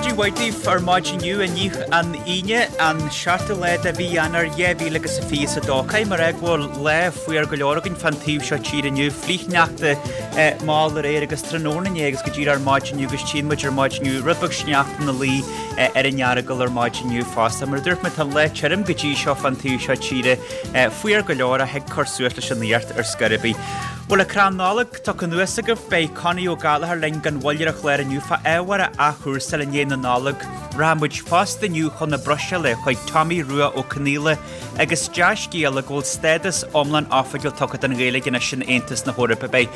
Maidin mhaith daoibh ar maidin inniu, inniu an Aoine, an seachtú lá de mhí Eanáir 2022. Caithfidh mé a rá go bhfuil lá fuar go leor againn fán taobh seo tíre inniu, flichshneachta mall aréir agus tráthnóna inné agus go díreach ar maidin inniu agus tchíonn muid ar maidin inniu rud beag sneachta ina luí ar an Earagail ar maidin inniu fosta. Mar a dúirt mé, tá an lá tirim go dtí seo fán taobh seo tíre, fuar go leor ach thig cur suas leis an fhuacht ar scor ar bith. Bhfuil an crann Nollag tugtha anuas agaibh? Beidh Connie Ó Gallchóir linn gan mhoill ar an chlár inniu fá ábhar a athchúrsáil i ndiaidh na Nollag. Rachaidh muid fosta inniu chun na Bruiséile chuig Tommy Rua Ó Conaola agus dea-scéala go bhfuil stádas iomlán oifigiúil tugtha don Ghaeilge anois in Aontas na hEorpa. Beidh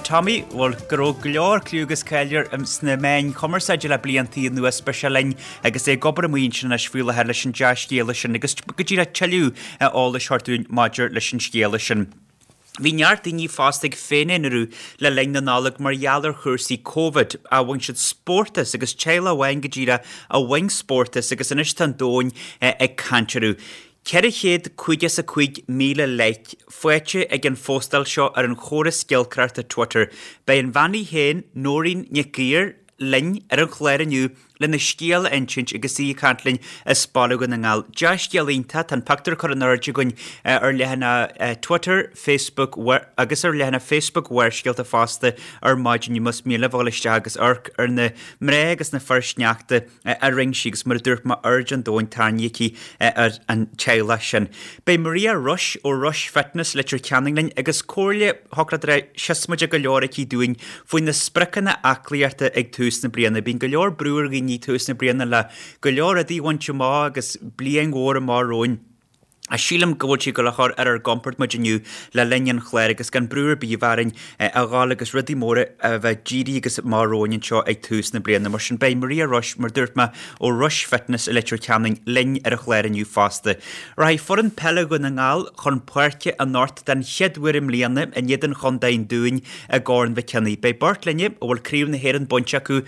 Tommy, bhuel, go raibh go leor cliú agus cáil air sna meáin chumarsáide le blianta anuas, beidh sé linn agus é ag obair amuigh ansin anois faoi láthair leis an dea-scéala sin agus go díreach tuilleadh eolais a thabhairt dúinn maidir leis an scéala sin. Bhí neart daoine fosta ag féin-aonarú le linn na Nollag mar gheall ar chúrsaí Covid, ach bhain siad spórt as agus teaghlach amháin go díreach a bhain spórt as agus anois tá an domhan ag caint orthu. 455,000 like faighte ag an phóstáil seo ar an chóras giolcaireachta Twitter. Beidh an bhean í féin, Nóirín Nic Uidhir, linn ar an chlár inniu lena scéal a insint agus í ag caint linn as Baile Dhún na nGall. Dea-scéal iontach, tá an pictiúr curtha in airde againn ar leathanach Twitter, Facebook agus ar leathanach Facebook Bharrscéalta fosta ar maidin inniu más mian libh a dhul isteach agus amharc ar na mná agus na fir sneachta a rinne sí agus mar a dúirt mé aird an domhain tarraingthe aici ar an teaghlach sin. Beidh Maria Rush ó Rush Fitness, Leitir Ceanainn linn agus comhairle shocraidire siosmaideach go leor aici dúinn faoi na spriocanna aclaíochta ag tús na bliana. Bíonn go leor brú ar dhaoine ag tús na bliana le go leor rudaí a bhaint amach agus bliain mhór amach romhainn. Ach sílim go bhfuil sí ag dul a chur ar ár gcompord muid inniu le linn an chláir agus gan brú ar bith a bheith orainn a dhul agus rudaí móra a bheith dírithe agus amach romhainn anseo ag tús na bliana. Mar sin beidh Maria Rush, mar dúirt mé, ó Rush Fitness i Leitir Ceanainn linn ar an chlár inniu fosta. Rachaidh foireann peile Dhún na nGall chun páirce anocht den chéad uair i mbliana in éadan Chontae an Dúin i gCorn Mhic Cionnaith. Beidh beirt linne a bhfuil Craobh na hÉireann bainte acu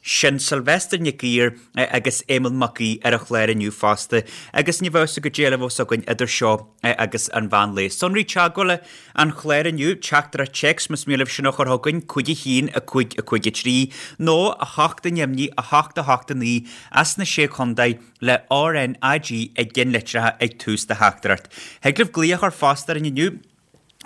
Sin Sylvester Nic Uidhir agus Éamonn Mac Aoidh ar an chlár inniu fosta agus ní bheadh a fhios agat goidé eile a bheas againn idir seo agus an mheán lae. Sonraí teagmhála an chláir inniu, teachtaireacht téacs más mian libh sin a chur chugainn, 5 1 5 5 3 nó 8 neamhní 8 8 9 as na Sé Chontae le RNAG i gceannlitreacha ag tús do theachtaireacht. Thig libh glaoch a chur fosta orainn inniu.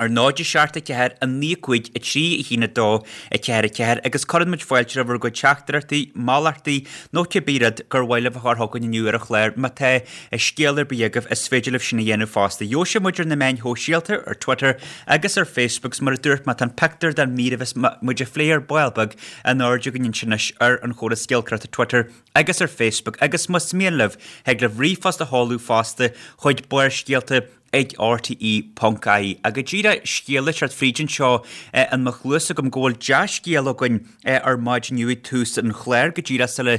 ar 0 7 4 9 5 3 1 2 4 4 agus cuireann muid fáilte roimh bhur gcuid teachtaireachtaí, moltaí nó cibé rud gur mhaith libh a chur chugainn inniu ar an chlár. Má tá scéal ar bith agaibh, is féidir libh sin a dhéanamh fosta. Gheobhaidh sibh muid ar na meáin shóisialta, ar Twitter agus ar Facebook 's mar a dúirt mé, tá an pictiúr den mhír a bheas muid a phlé ar ball beag in airde againn ansin anois ar an chóras giolcaireachta Twitter agus ar Facebook agus más mian libh, thig libh ríomhphost a sheoladh fosta chuig Barrscéalta ag rte ponc ie. Go díreach scéal ag teacht fríd anseo in mo chluas agam go bhfuil dea-scéal againn ar maidin inniu ag tús an chláir go díreach sula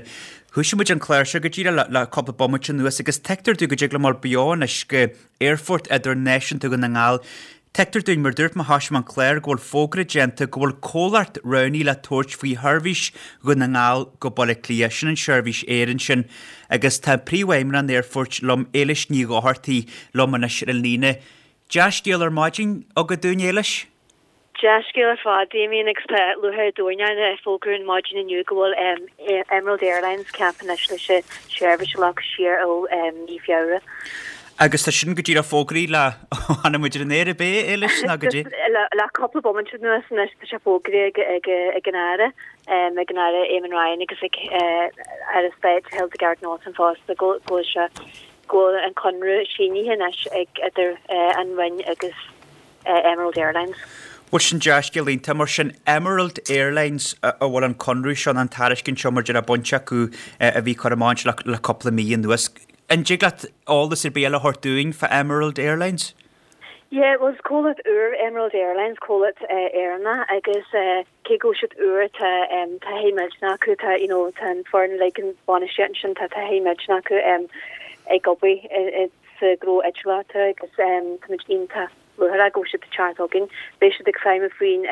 thoisigh muid an clár seo go díreach le cúpla bomaite anuas agus tuigtear dúinn go dtig liom dul beo anois go Aerfort Idirnáisiúnta Dhún na nGall Tuigtear dúinn, mar dúirt mé thoisigh mé an clár, go bhfuil fógra déanta go bhfuil comhlacht roghnaithe le tabhairt faoi sheirbhís Dhún na nGall go Baile Átha Cliath, sin an seirbhís aeir ansin. Agus tá Príomhfheidhmeannach an aerfoirt liom, Éilis Ní Dhochartaigh, liom anois ar an líne. Dea-scéal ar maidin agat dúinn, Éilis? Dea-scéal ar fad, Damien, agus tá lúcháir an domhain orainn a fhógrú ar maidin inniu go bhfuil Emerald Airlines ceaptha anois leis an seirbhís a ghlacadh siar ó mhí Feabhra. Agus tá sin go díreach fógraithe le ó tháinig muid ar an aer ab é, Éilis, nó goidé? Le cúpla bomaite anuas anois tá sé fógraithe ag an Aire. ag an Aire Eamon Ryan agus ag Aire Stáit Hildegarde Naughton fosta go bhfuil sé go bhfuil an conradh sínithe anois ag idir an Roinn agus Emerald Airlines. Bhuel sin dea-scéal iontach. Mar sin Emerald Airlines a bhfuil an conradh seo nó an tairiscint seo mar a déarfá bainte acu a bhí curtha amach le cúpla mí anuas. An dtig leat eolas ar bith eile a thabhairt dúinn fá Emerald Airlines? Yeah, bhuel is comhlacht úr Emerald Airlines, comhlacht Éireannach agus cé go bhfuil siad úr tá taithí millteanach acu, tá you know tá an foireann uilig an bhainistíocht ansin, tá taithí millteanach acu ag obair sa ghnó eitilíochta agus táimid iontach lúcháireach go bhfuil siad ag teacht chugainn. Beidh siad ag feidhmiú faoin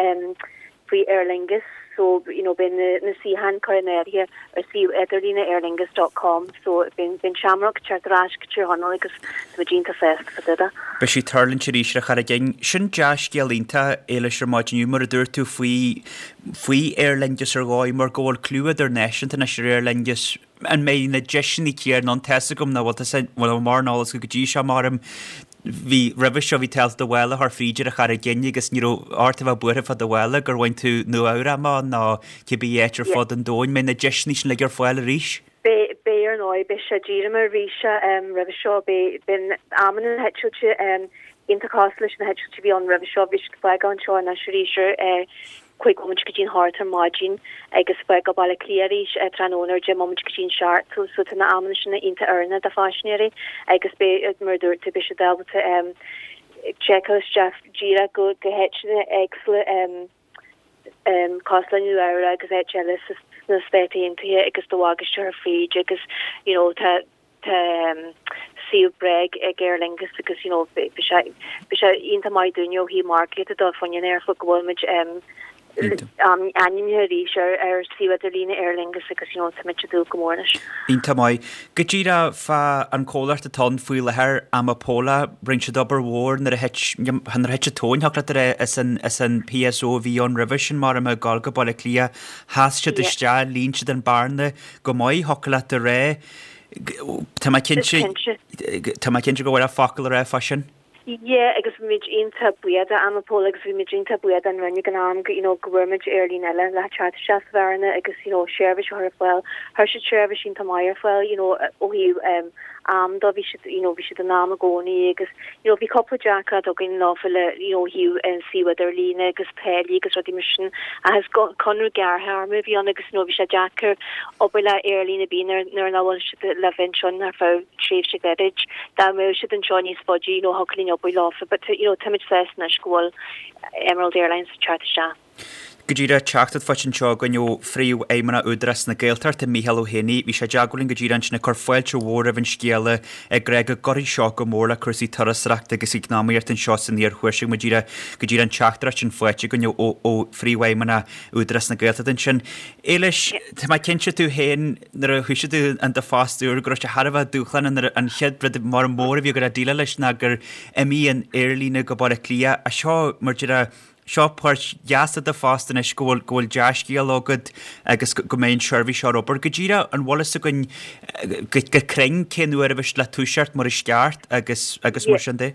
faoi Aer Lingus. so you know beidh na na suíocháin curtha in áirithe ar suíomh idirlíne aerlingus dot com so beidh beidh an Shamrock ag teacht ar ais go Tír Chonaill agus tá muid iontach sásta fá dtaobh de. Beidh sí ag tuirlingt arís ar an Charraig Fhinn. Sin dea-scéal iontach, Éilis, ar maidin inniu, mar a dúirt tú faoi faoi Aer Lingus ar dhóigh mar go bhfuil clú idirnáisiúnta anois ar Aer Lingus. An mbeidh na deiseanna céanna ann? Tá's agam nach bhfuil, tá bhuel mar an eolas go dtí seo maram bhí roimhe seo bhí tú ábalta do mhála a chur fríd ar an Charraig Fhinn agus ní raibh ort a bheith buartha fá do mhála gur bhain tú Nua Eabhrac amach nó cibé áit ar fud an domhain. Mbeidh na deiseanna sin uilig ar fáil arís? Beidh, beidh ar ndóigh, beidh sé díreach mar a bhí sé roimhe seo, beidh, beidh amanna na heitilte iontach cosúil leis na heitiltí a bhí ann roimhe seo, bhí siad ag fágáil anseo anois arís ar 5 bomaite go dtí an hocht ar maidin agus fágáil Baile Átha Cliath arís tráthnóna ar 10 mbomaite go dtí an seacht so so tá na amanna sin iontach oiriúnach do phaisinéirí agus beidh, mar a dúirt tú, beidh siad ábalta seiceáil isteach díreach go go háiteanna éagsúla cosúil le Nua Eabhrac agus áit eile sna Stáit Aontaithe agus do bhagáiste a chur fríd agus you know tá Tá suíomh breá ag Aer Lingus agus you know beidh sé beidh sé iontach maith dúinne ó thaobh margaíochta de fá choinne an aerfort go bhfuil muid ainmnithe arís ar ar suíomh idirlíne Aer Lingus agus you know tá muid ag dúil go mór leis. Iontach maith. Go díreach fá an comhlacht atá ann faoi láthair, Amapola, rinne siad obair mhór nuair a thit nuair a thit an tóin, thiocfadh leat a rá, as an as an PSO a bhí ann roimhe sin mar ag gabháil go Baile Átha Cliath, sheas siad isteach, líon siad an bearna go maith, thiocfadh leat a rá. Tá mé cinnte, tá mé cinnte go bhfuil focal le rá fá sin. Yeah, agus bhí muid iontach buíoch do Amapola agus bhí muid iontach buíoch don Roinn ag an am go, you know, go bhfuair muid aerlíne eile le teacht isteach sa bhearna agus, you know, seirbhís a chur ar fáil. Chuir siad seirbhís iontach maith ar fáil, you know, ó thaobh um, am de, bhí siad, you know, bhí siad in am i gcónaí agus, you know, bhí cúpla deacracht againn leofa le, you know, ó thaobh an suíomh idirlíne agus táillí agus rudaí mar sin ach is conradh gearrthéarma a bhí ann agus, you know, bhí sé deacair obair le aerlíne ar bith nuair nuair nach bhfuil siad le bheith anseo ar feadh tréimhse ghairid. Dá mbeadh siad anseo níos faide, you know, thiocfadh linn obair leofa but, you know, táimid sásta anois go bhfuil Emerald Airlines ag teacht isteach. Go díreach, teachtaireacht faighte anseo againn ó Phríomhfheidhmeannach Údarás na Gaeltachta, Mícheál Ó hÉanaí. Bhí sé i dteagmháil linn go díreach ansin ag cur fáilte mhór roimh an scéala ag rá go gcuirfidh seo go mór le cúrsaí turasóireachta agus eacnamaíochta anseo san iarthuaisceart. Go díreach, go díreach an teachtaireacht sin faighte againn ó Phríomhfheidhmeannach Údarás na Gaeltachta ansin. Éilis, tá mé cinnte tú féin nuair a thoisigh tú in do phost úr go raibh sé thar a bheith dúshlánach nuair an chéad rud mar mór a bhí agat le déileáil leis ná gur imigh an aerlíne go Baile Átha Cliath. Ach seo mar deir Seo páirt dheas de do phost anois go bhfuil go bhfuil dea-scéal agat agus go mbeidh an tseirbhís seo ar obair. Go díreach, an bhfuil fhios againn go go cruinn cén uair a bheidh siad le toiseacht mar is ceart agus agus mar sin de?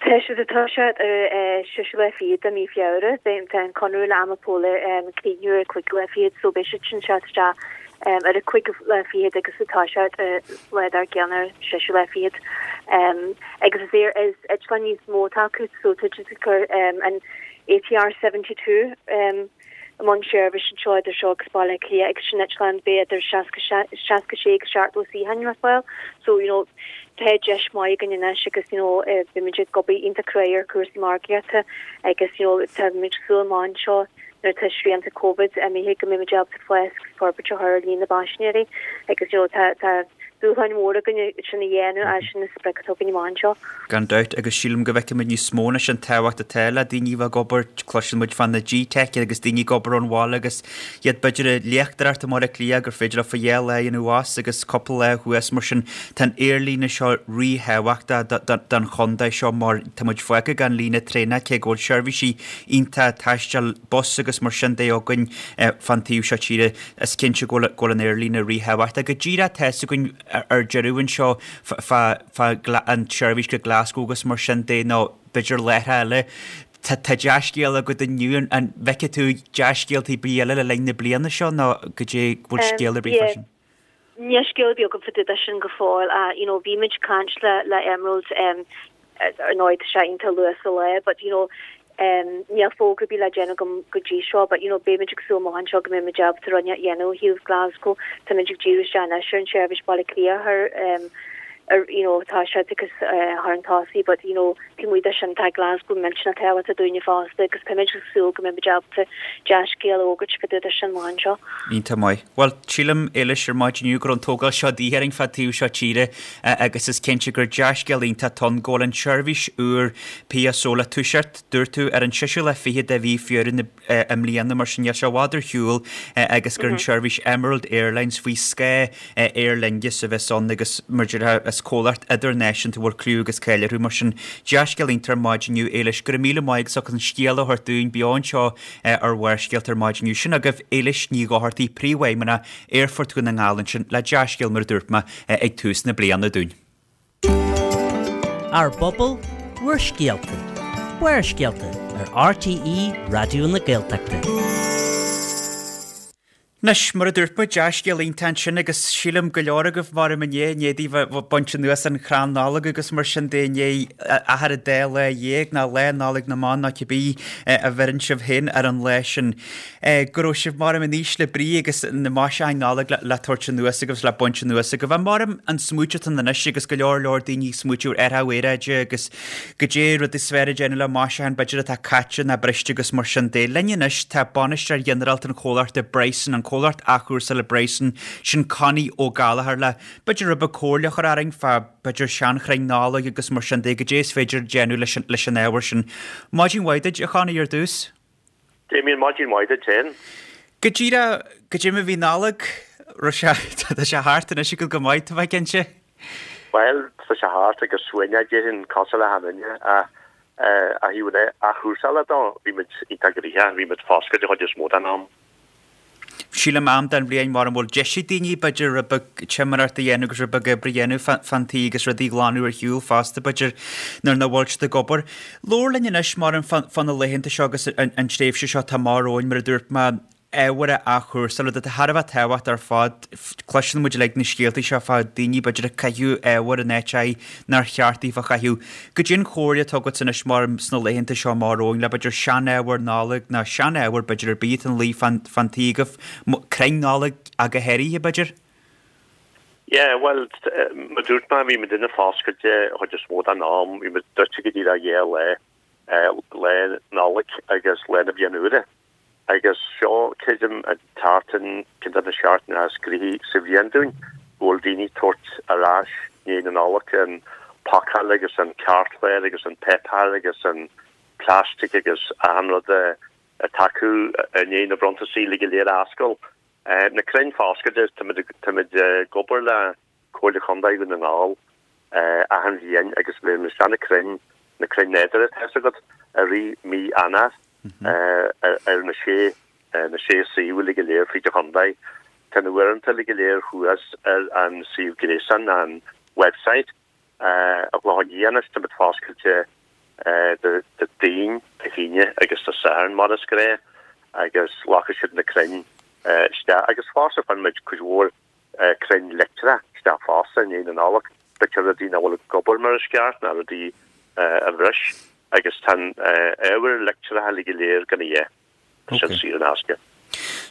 Tá siad ag toiseacht ar an seisiú lá fichead de mí Feabhra. Beidh tá an conradh le Amapola críochnú ar an cúigiú lá fichead so beidh siad sin ag teacht isteach ar an cúigiú lá fichead agus ag toiseacht lá dár gcionn ar an seisiú lá fichead. Agus is é is eitleán níos mó atá acu so tá siad ag cur an ATR 72 i mbun seirbhís anseo idir seo agus Baile Átha Cliath agus sin eitleán beidh idir 66 agus 70 suíochán ar fáil. So you know tá deis maith againn anois agus you know beimid ag obair iontach cruaidh ar chúrsaí margaíochta agus you know tá muid ag súil amach anseo nuair atá srianta Covid imithe go mbeimid ábalta fás agus forbairt a chur ar líon na bpaisinéirí agus you know tá tá dúshláin mhóra againn sin a dhéanamh ach sin an sprioc atá againn amach anseo. Gan dabht, agus sílim go bhfeicfimid níos mó anois an tábhacht atá le daoine a bheith ag obair, cloiseann muid fá na G-Tech agus daoine ag obair ón bhaile agus iad b'fhéidir ag léachtóireacht i mBaile Átha Cliath gur féidir leofa dhá lá a dhéanamh abhus agus cúpla lá thuas mar sin tá an aerlíne seo ríthábhachtach don chontae seo mar tá muid fágtha gan líne traenach cé go bhfuil seirbhísí iontach taistil bus agus mar sin de againn fán taobh seo tíre. Is cinnte go bhfuil an aerlíne ríthábhachtach. Go díreach tá fhios againn ar deireadh anseo fá an tseirbhís go Glasgow agus mar sin de nó b'fhéidir láithreacha eile. Tá dea-scéal agat inniu. An bhfeicfidh tú dea-scéaltaí ar bith eile le linn na bliana seo nó goidé bhfuil scéal ar bith fá sin? Níl scéal ar bith agam fá dtaobh de sin go fóill ach you know bhí muid ag caint le le Emerald um ar ndóigh tá sé iontach luath sa lá but you know um níl fógra ar bith le déanamh agam go dtí seo but you know beidh muid ag súil amach anseo go mbeidh muid ábalta rud a dhéanamh ó thaobh Glasgow. Tá muid ag díriú isteach anois ar an seirbhís Baile Átha Cliath a chur um. You know tá siad agus thar an tosaigh but you know taobh amuigh de sin tá Glasgow millteanach tábhachtach dúinne fosta agus tá muid ag súil go mbeidh muid ábalta dea-scéal a fhógairt fá dtaobh de sin amach anseo. Iontach maith. Bhuel, sílim, Éilis, ar maidin inniu go raibh an tógáil seo de dhíth orainn fá taobh seo tíre agus is cinnte gur dea-scéal iontach atá ann go bhfuil an tseirbhís úr PSO le toiseacht, dúirt tú, ar an seisiú lá fichead de mhí Feabhra na i mbliana, mar sin níl sé i bhfad ar shiúl agus gur an seirbhís Emerald Airlines faoi scáth Aer Lingus a bheas ann agus mar a déarfá is comhlacht idirnáisiúnta a bhfuil cliú agus cáil orthu. Mar sin, dea-scéal iontach ar maidin inniu, Éilis. Go raibh míle maith agat as an scéal a thabhairt dúinn beo anseo ar Bharrscéalta ar maidin inniu. Sin agaibh Éilis Ní Dhochartaigh, Príomhfheidhmeannach Aerfort Dhún na nGall ansin le dea-scéal mar a dúirt mé ag tús na bliana dúinn. Ár bpobal, bhur scéalta. Barrscéalta ar RTÉ Raidió na Gaeltachta. Anois, mar a dúirt muid, dea-scéal iontach ansin agus sílim go leor agaibh maram inné, i ndiaidh daoibh a bheith baint anuas an chrann Nollag agus mar sin de i ndiaidh achar an dá lá dhéag nó Lá Nollag na mBan nó cibé a bheireann sibh féin ar an lá sin. Go raibh sibh maram in ísle brí agus na maisiúcháin Nollag le tabhairt anuas agaibh is le baint anuas agaibh. Ach maram an smaoitiú atá ann anois agus go leor leor daoine ag smaoitiú ar athrú aeráide agus goidé rud is fearr a déanamh le maisiúcháin b'fhéidir atá caite ná briste agus mar sin de. Linn anois tá bainisteoir ghinearálta an chomhlachta Bryson, an comhlacht athchúrsála Bryson, sin Connie Ó Gallchóir le b'fhéidir rud beag comhairle a chur orainn fá b'fhéidir seanchrainn Nollag agus mar sin de, goidé is féidir a déanamh leis an ábhar sin. Maidin mhaith duit, a Chonnie, ar dtús. Damien, maidin mhaith duit féin. Go díreach, goidé mar a bhí Nollaig, raibh sé, tá sé thart anois agat go maith, tá mé cinnte. Bhuel, tá sé thart agus uaigneach déarfainn cosúil le achan duine ach ó thaobh na athchúrsála dó, bhí muid iontach gnoitheach, bhí muid foscailte an chuid is mó den am. Sílim am den bhliain mar a bhfuil deis ag daoine b'fhéidir rud beag timireacht a dhéanamh agus rud beag oibre a dhéanamh fán tí agus rudaí a ghlanadh ar shiúl fosta b'fhéidir nuair nach bhfuil siad ag obair. Labhair linn anois mar fá na laethanta seo agus an tréimhse seo atá amach romhainn mar a dúirt mé ábhar a athchúrsáil, rud atá thar a bheith tábhachtach ar fad. Cloiseann muid uilig na scéaltaí seo fá daoine b'fhéidir ag caitheamh ábhair in áit nár cheart daofa a chaitheamh. Goidé an chomhairle atá agat anois mar sna laethanta seo amach romhainn le b'fhéidir sean-ábhar Nollag ná sean-ábhar b'fhéidir ar bith atá ina luí fán tí agaibh, crainn Nollag ach go háirithe b'fhéidir? Yeah, bhuel, mar a dúirt mé, bhí muidinne foscailte an chuid is mó den am, bhí muid druidte go díreach dhá lá, lá Nollag agus lá na Bliana Úire. Agus seo, creidim, an tseachtain, ceann de na seachtainí is gnoithí sa bhliain dúinn, go bhfuil daoine ag tabhairt ar ais i ndiaidh na Nollag an pacáil agus an cairtchlár agus an páipéar agus an plastic agus achan rud atá acu i ndiaidh na bronntasaí uilig go léir a fháscáil. Na crainn foscailte, táimid ag obair le Comhairle Chontae Dhún na nGall achan bhliain agus bhí isteach na crainn, na crainn nádúrtha tá fhios agat, i rith mí Eanáir ar na sé, na sé suíomh uilig go léir fríd an chontae. Tá na huaireanta uilig go léir thuas ar an suíomh gréasáin, an website, an Clochán Liath anois, táimid foscailte Dé Daoin, Dé hAoine agus Dé Sathairn mar is gnáth agus glacfaidh siad na crainn isteach agus fosta faigheann muid cuid mhór crainn leictreach isteach fosta i ndiaidh na Nollag, b'fhéidir rudaí nach bhfuil ag obair mar is ceart ná rudaí a bhris agus tá an ábhar leictreach uilig go léir gan a dhath, tá sin saor in aisce.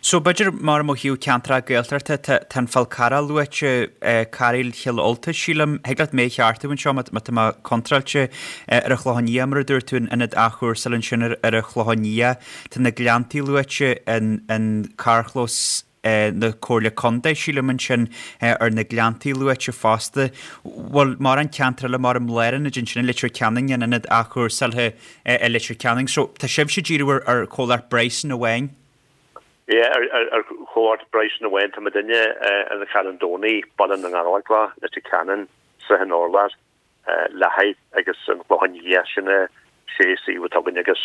So b'fhéidir mar ó thaobh ceantracha Gaeltachta tá tá an Fál Carrach luaite, Cairéal Chill Ulta sílim, thig leat mé a cheartú anseo má tá mé contráilte, ar an Chlochán Liath mar a dúirt tú, an ionad athchúrsála ansin ar ar an Chlochán Liath, tá na Gleanntaí luaite, an an carrchlós, na Comhairle Contae, sílim ansin, ar na Gleanntaí luaite fosta. Bhfuil mórán ceantar eile mar an Lárionad ansin i Leitir Ceanainn, an ionad athchúrsáilte i Leitir Ceanainn. So tá sibhse ag díriú ar ar chomhlacht Bryson amháin? Yeah, ar ar chomhlacht Bryson amháin. Tá muidinne in Charn Domhnaigh, Baile na nGallóglach, Leitir Ceanainn, Srath an Urláir. Leathaigh agus an Clochán Liath, sin na sé suíomh atá againn agus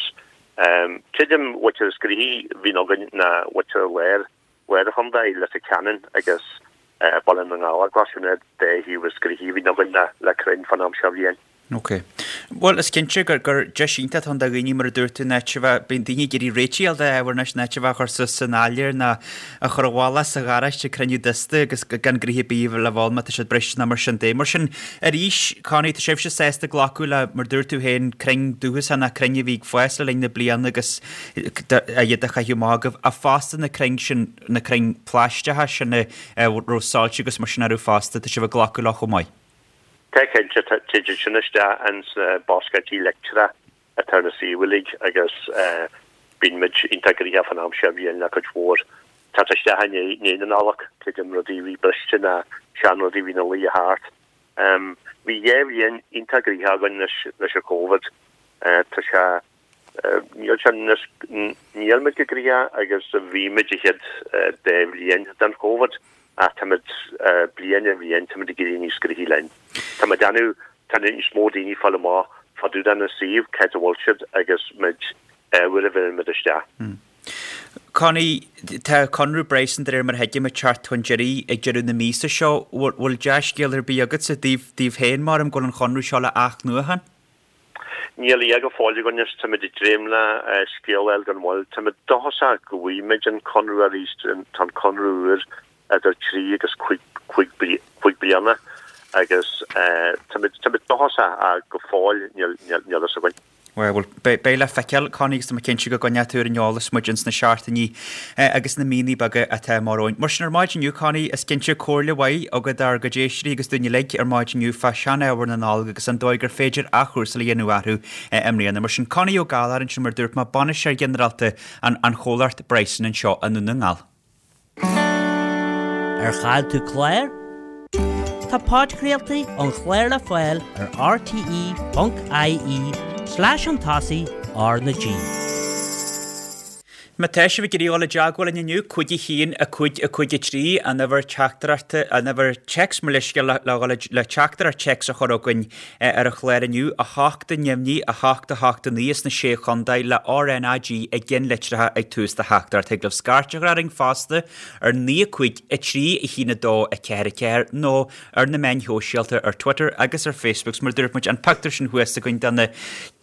creidim b'fhéidir is gnoithí a bhíonn againn ná b'fhéidir lár, lár an chontae, Leitir Ceanainn agus Baile na nGallóglach, sin na dá shuíomh is gnoithí a bhíonn againn le crainn fán am seo bhliain. Ok. Bhuel, is cinnte gur, gur deis iontach atá ann do dhaoine, mar a dúirt tú, in áit a bheith, bíonn daoine ag iarraidh réitigh a fháil d'ábhar anois, in áit a bheith á chur suas san áiléar ná a chur i bhfolach sa gharáiste ag cruinniú dusta agus gan gnoithe ar bith le bheith ann má tá siad briste ná mar sin de. Mar sin, arís, Connie, tá sibhse sásta glacadh le, mar dúirt tú féin, crainn dúchasacha ná crainn a bhí ag fás le linn na bliana agus iad a chaitheamh amach agaibh, ach fosta na crainn sin, na crainn phlaisteacha sin a raibh soilse agus mar sin orthu fosta, tá sibh ag glacadh leo chomh maith. Tá cinnte, téann siad sin isteach ins na boscaí leictreacha atá ar na suímh uilig agus bíonn muid iontach gnoitheach fán am seo bhliain le cuid mhór teacht isteach i ndiaidh na Nollag, creidim rudaí a bhí briste ná seanrudaí a bhí ina luí thart. Bhí dhéa bhliain iontach gnoitheach againn leis an Covid. Tá sé Níl sé níos, níl muid chomh gnoitheach agus a bhí muid an chéad dá bhliain den Covid ach táimid bliain ar bhliain, táimid ag éirí níos gnoithí linn. Tá muid déanamh, tá níos mó daoine ag fáil amach fá dtaobh den suíomh, cá háit a bhfuil siad agus muid, uair a bheireann muid isteach. Connie, tá conradh Bryson de réir mar a thuigim ag teacht chun deiridh ag deireadh na míosa seo. Bhfuil dea-scéal ar bith agatsa daoibh féin mar go bhfuil an chonradh seo le athnuachan? Níl a fhios go fóill againn is táimid ag dréim le scéal a fháil gan mhoill. Táimid dóchasach go bhfaighidh muid an conradh arís, tá an conradh úr idir trí agus cúig bliana agus táimid dóchasach ach go fóill níl a fhios againn. Bhuel, beidh le feiceáil, Connie, agus tá mé cinnte go gcoinneoidh tú ar an eolas muid ins na seachtainí agus na míonna beaga atá amach romhainn. Mar sin, ar maidin inniu, Connie, is cinnte comhairle mhaith agat dár gcuid éisteoirí agus dúinn uilig ar maidin inniu fá sean-ábhar na Nollag agus an dóigh gur féidir athchúrsáil a dhéanamh orthu i mbliana. Mar sin, Connie Ó Gallchóir ansin, mar a dúirt mé, Bainisteoir Ginearálta an chomhlacht Bryson anseo i nDún na nGall. Ar chaill tú clár? Tá podchraoltaí an chláir le fáil ar rte.ie slash chun tosaigh R na G. Má tá sibh ag iarraidh dul i dteagmháil linn inniu, 5 1 5 5 3, an uimhir teachtaireachta, an uimhir téacs mo leithscéal le dhul le teachtaireacht téacs a chur chugainn ar an chlár inniu, 8 neamhní, 8 8 9 sna Sé Chontae le RnaG i gceannlitreacha ag tús do theachtaireacht. Thig libh scairt a chur orainn fosta ar 9 5 3 1 2 4 4 nó ar na meáin shóisialta ar Twitter agus ar Facebook 's mar a dúirt muid an pictiúr sin thuas againn de na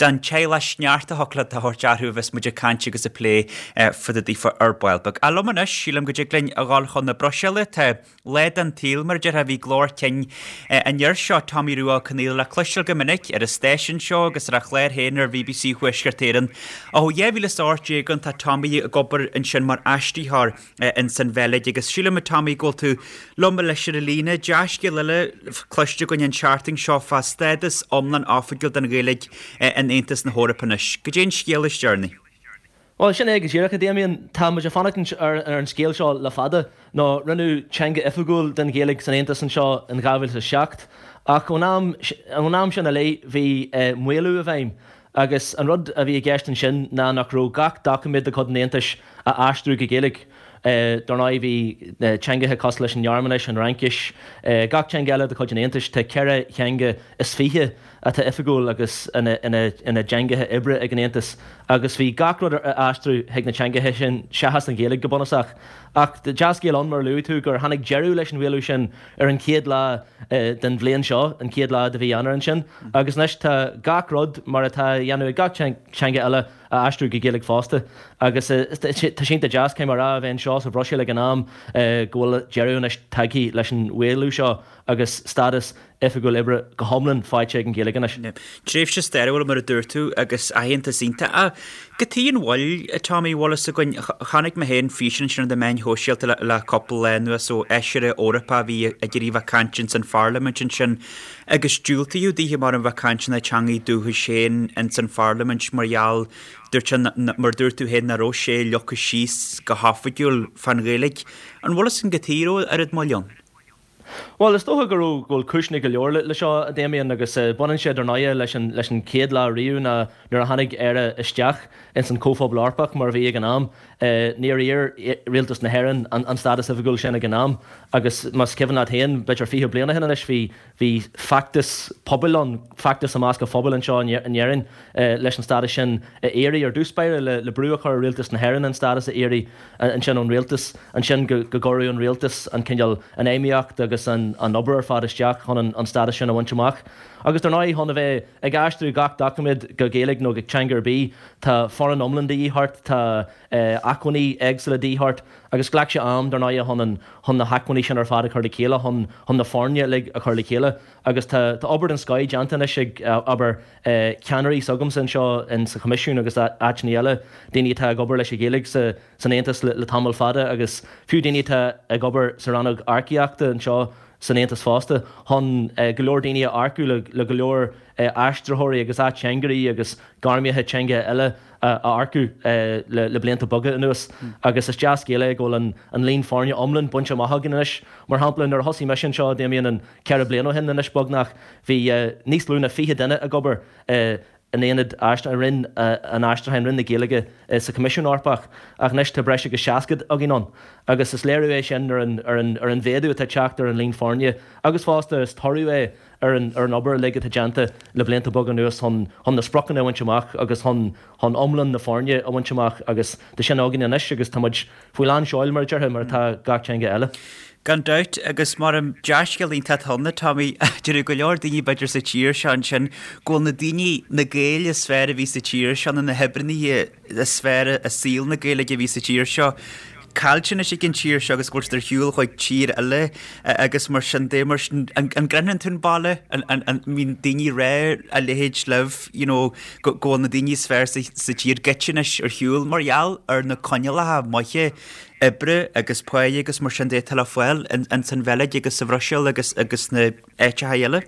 den teaghlach sneachta thiocfadh leat a thabhairt orthu a bheas muid ag caint agus ag plé fá dtaobh daofa ar ball beag. Ach liom anois, sílim go dtig linn a dhul chun na Bruiséile, tá lá den tsaol mar a déarfá, bhí glór cinn an fhir seo, Tommy Rua Ó Conaola le cloisteáil go minic ar an stáisiún seo agus ar a chlár féin ar BBC Thuaisceart Éireann. Ó 2018 ann tá Tommy ag obair ansin mar aistritheoir ins an Bheilg agus sílim a Tommy go bhfuil tú liom anois ar an líne. Dea-scéal eile cloiste againn an tseachtain seo fá stádas iomlán oifigiúil don Ghaeilge in Aontas na hEorpa anois. Goidé an scéal is deireanaí? Bhuel, sin é go díreach, a Damien. Tá muid ag fanacht ar an scéal seo le fada, nó rinneadh teanga oifigiúil den Ghaeilge san Aontas anseo in 2007, ach ón am sin i leith bhí maolú i bhfeidhm. Agus an rud a bhí i gceist ansin ná nach raibh gach doiciméad de chuid an Aontais á aistriú go Gaeilge. Dar ndóigh bhí teangacha cosúil leis an nGearmáinis, an Fhraincis, gach teanga eile de chuid an Aontais, tá ceithre theanga is fiche atá oifigiúil agus ina dteangacha oibre ag an Aontas agus bhí gach rud á aistriú chuig na teangacha sin seachas an Ghaeilge go bunúsach. Ach dea-scéal ann, mar a luaigh tú, gur tháinig deireadh leis an mhaolú sin ar an chéad lá den bhliain seo, an chéad lá de mhí Eanáir ansin, agus anois tá gach rud mar atá á dhéanamh ag gach teanga eile á aistriú go Gaeilge fosta. Agus tá sé iontach deas, caithfidh mé a rá, a bheith anseo sa Bhruiséil ag an am go bhfuil deireadh anois tagtha leis an mhaolú seo agus stádas oifigiúil oibre go hiomlán faighte ag an Ghaeilge anois. Tréimhse stairiúil, mar a dúirt tú, agus aitheantas iontach. Ach cad chuige an mhoill, a Tommy, bhfuil fhios againn, chonaic mé féin físeán ansin ar na meáin shóisialta le cúpla lá anuas ó fheisire Eorpach a bhí ag iarraidh a bheith ag caint ins an pharlaimint ansin agus diúltaíodh daoithe mar a bheith ag caint ina teangaidh dúchais féin ins an pharlaimint mar gheall, dúirt sé, mar dúirt tú féin, nach raibh sé leagtha síos go hoifigiúil fán Ghaeilge. An bhfuil fhios againn cad chuige a raibh oiread moill ann? Bhuel, is dócha go raibh, go bhfuil cúiseanna go leor le seo, a Damien, agus baineann sé dar ndóighe leis an, leis an chéad lá riamh ná nuair a tháinig Éire isteach ins an Chomhphobal Eorpach mar a bhí ag an am. Níor iarr Rialtas na hÉireann an, an stádas oifigiúil sin ag an am agus más cuimhin leat féin, b'fhéidir 20 bliain ó shin anois, bhí, bhí feachtas pobail ann, feachtas i measc an phobail anseo in Éirinn leis an stádas sin a iarraidh ar dtús báire, le, le brú a chur ar Rialtas na hÉireann an stádas a iarraidh. ansin ón rialtas, ansin go gcuireadh an rialtas an cineál, an fheidhmíocht agus an obair ar fad isteach chun an stádas sin a bhaint amach. Agus dar ndóigh, chun a bheith ag aistriú gach doiciméad go Gaeilge nó go teanga ar bith, tá foireann iomlán de dhíth ort, tá acmhainní éagsúla de dhíth ort agus ghlac sé am, dar ndóigh, chun an, chun na hacmhainní sin ar fad a chur le chéile, chun, chun na foirne uilig a chur le chéile. Agus tá, tá obair den scoith déanta anois ag, abair, ceannairí s'agamsa anseo in sa Choimisiún agus áiteanna eile, daoine atá ag obair leis an Ghaeilge sa san Aontas le tamall fada agus fiú daoine atá ag obair sa rannóg earcaíochta anseo. san Aontas fosta chun go leor daoine a earcú le go leor aistritheoirí agus ateangairí agus gairmithe teanga eile a earcú le blianta beaga anuas agus is dea-scéal é go bhfuil an líon foirne iomlán bainte amach againn anois. Mar shampla, nuair a thosaigh mise anseo, Damien, an 4 bliana ó shin anois beagnach, bhí níos lú ná 20 duine ag obair in aonad i Roinn an Aistriúcháin, Roinn na Gaeilge sa Choimisiún Eorpach ach anois tá breis agus 60 againn ann agus is léiriú é sin ar an ar an ar an mhéadú atá ag teacht ar an líon foirne agus fosta is toradh é ar an ar an obair uilig atá déanta le blianta beaga anuas chun chun na spriocanna a bhaint amach agus chun chun iomlán na foirne a bhaint amach agus tá sin againn anois agus tá muid faoi lán seoil mar a déarfá, mar atá gach teanga eile. Gan dabht, agus mar an dea-scéal iontach atá ann, Tommy, déarfaidh go leor daoine b'fhéidir sa tír seo ansin go bhfuil na daoine, na Gaeil is fearr a bhí sa tír seo nó na hoibreannaithe is fearr i saol na Gaeilge a bhí sa tír seo, caillte anois ag an tír seo agus go bhfuil siad ar shiúl chuig tír eile agus mar sin de, mar sin, an gcroitheann tú an baile, an mbíonn daoine ag rá a leithéid libh, you know, go bhfuil na daoine is fearr sa tír goite anois ar shiúl mar gheall ar na coinníollacha maithe oibre agus páighe agus mar sin de atá le fáil ins an Bheilg agus sa Bhruiséil agus agus sna áiteacha eile.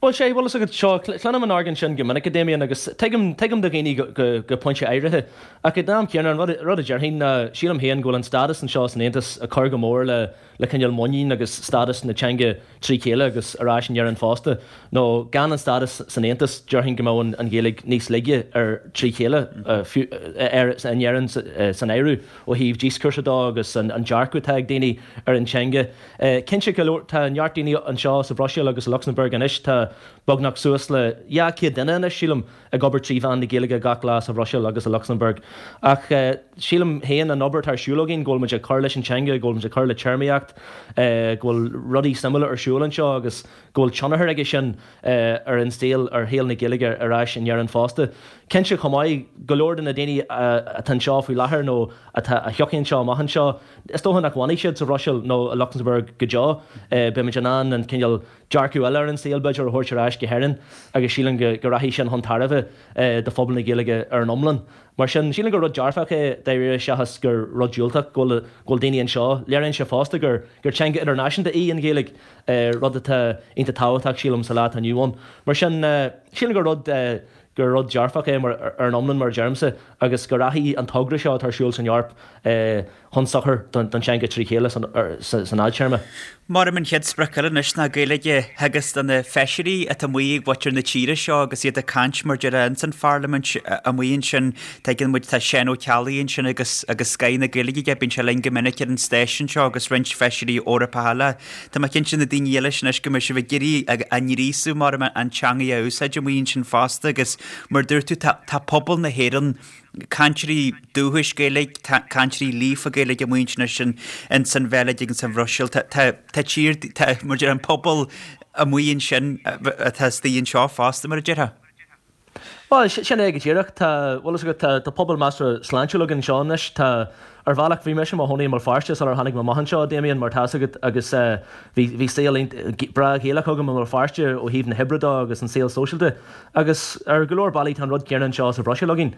Bhuel, sea, bhfuil fhios agat, seo, cluinim an argóint sin go minic, a Damien, agus tuigim, tuigim do dhaoine go, go, go pointe áirithe. Ach ag an am céanna, an rud, rud a déarfainn ná, sílim féin go bhfuil an stádas anseo san Aontas ag cur go mór le, le cineál muinín agus stádas na teanga trí chéile agus ar ais in Éirinn fosta. Nó gan an stádas san Aontas, déarfainn go mbeadh an, an Ghaeilge níos laige ar, trí chéile, fiú, ar, in Éirinn san áireamh ó thaobh díoscúrsa dó agus an, an dearcadh atá ag daoine ar an teanga. Cinnte go leor, tá neart daoine anseo sa Bhruiséil agus i Lucsamburg anois, tá beagnach suas le 200 duine anois, sílim, ag obair trí mheán na Gaeilge gach lá sa Bhruiséil agus i Lucsamburg. Ach sílim féin, an obair atá ar siúl againn, go bhfuil muid ag cur leis an teanga, go bhfuil muid ag cur le téarmaíocht, go bhfuil rudaí suimiúla ar siúl anseo agus go bhfuil tionchar aige sin ar an saol, ar shaol na Gaeilge ar ais in Éirinn fosta. Cinnte chomh maith, go leor de na daoine atá anseo faoi láthair nó atá, a thiocfaidh anseo amach anseo, Is dócha nach bhfanfaidh siad sa Bhruiséil nó i Lucsamburg go deo. Beimid in ann an cineál dearcadh eile ar an saol, b'fhéidir, a thabhairt ar ais go hÉirinn agus sílim go rachaidh sin chun tairbhe do phobal na Gaeilge ar an iomlán. Mar sin, sílim gur rud dearfach é dáiríre seachas gur rud diúltach go bhfuil daoine anseo. Léiríonn sé fosta gur teanga idirnáisiúnta í an Ghaeilge, rud atá iontach tábhachtach, sílim, sa lá atá inniu ann. Mar sin, sílim gur rud. gur rud dearfach é mar ar an iomlán, mar a deirimse, agus go rachaidh an togra seo atá ar siúl san Eoraip chun sochair don teanga trí chéile san fhadtéarma. Maram an chéad sprioc eile anois ná Gaeilge a theagasc do na feisirí atá amuigh ag mhuintir na tíre seo agus iad ag caint mar déarfá ins an pharlaimint amuigh ansin. Tuigeann muid tá Seán Ó Ceallaigh ansin agus agus scoth na Gaeilge aige, bíonn sé linn go minic ar an stáisiún seo agus roinnt feisirí Eorpacha eile. Tá mé cinnte na daoine eile sin anois go mbeidh sibh ag iarraidh a ngríosadh maram an teangaidh a úsáid amuigh ansin fosta agus mar dúirt tú tá tá pobal na hÉireann, cainteoirí dúchais Gaeilge, cainteoirí líofa Gaeilge amuigh ansin anois ins an Bheilg agus sa Bhruiséil. Tá tá tá tír tá mar deir an pobal amuigh ansin atá istigh anseo fosta mar a déarfá. Bhuel, sin é go díreach. Tá, bhfuil fhios agat, tá, tá pobal measartha sláintiúil againn anseo anois. Tá, ar bhealach, bhí mise i mo chónaí i mBéal Feirste sular tháinig mé amach anseo, a Damien, mar tá fhios agat, agus bhí, bhí saol breá Gaelach agam i mBéal Feirste ó thaobh na hoibre de agus an saol sóisialta. Agus ar go leor bealaí tá an rud céanna anseo sa Bhruiséil againn.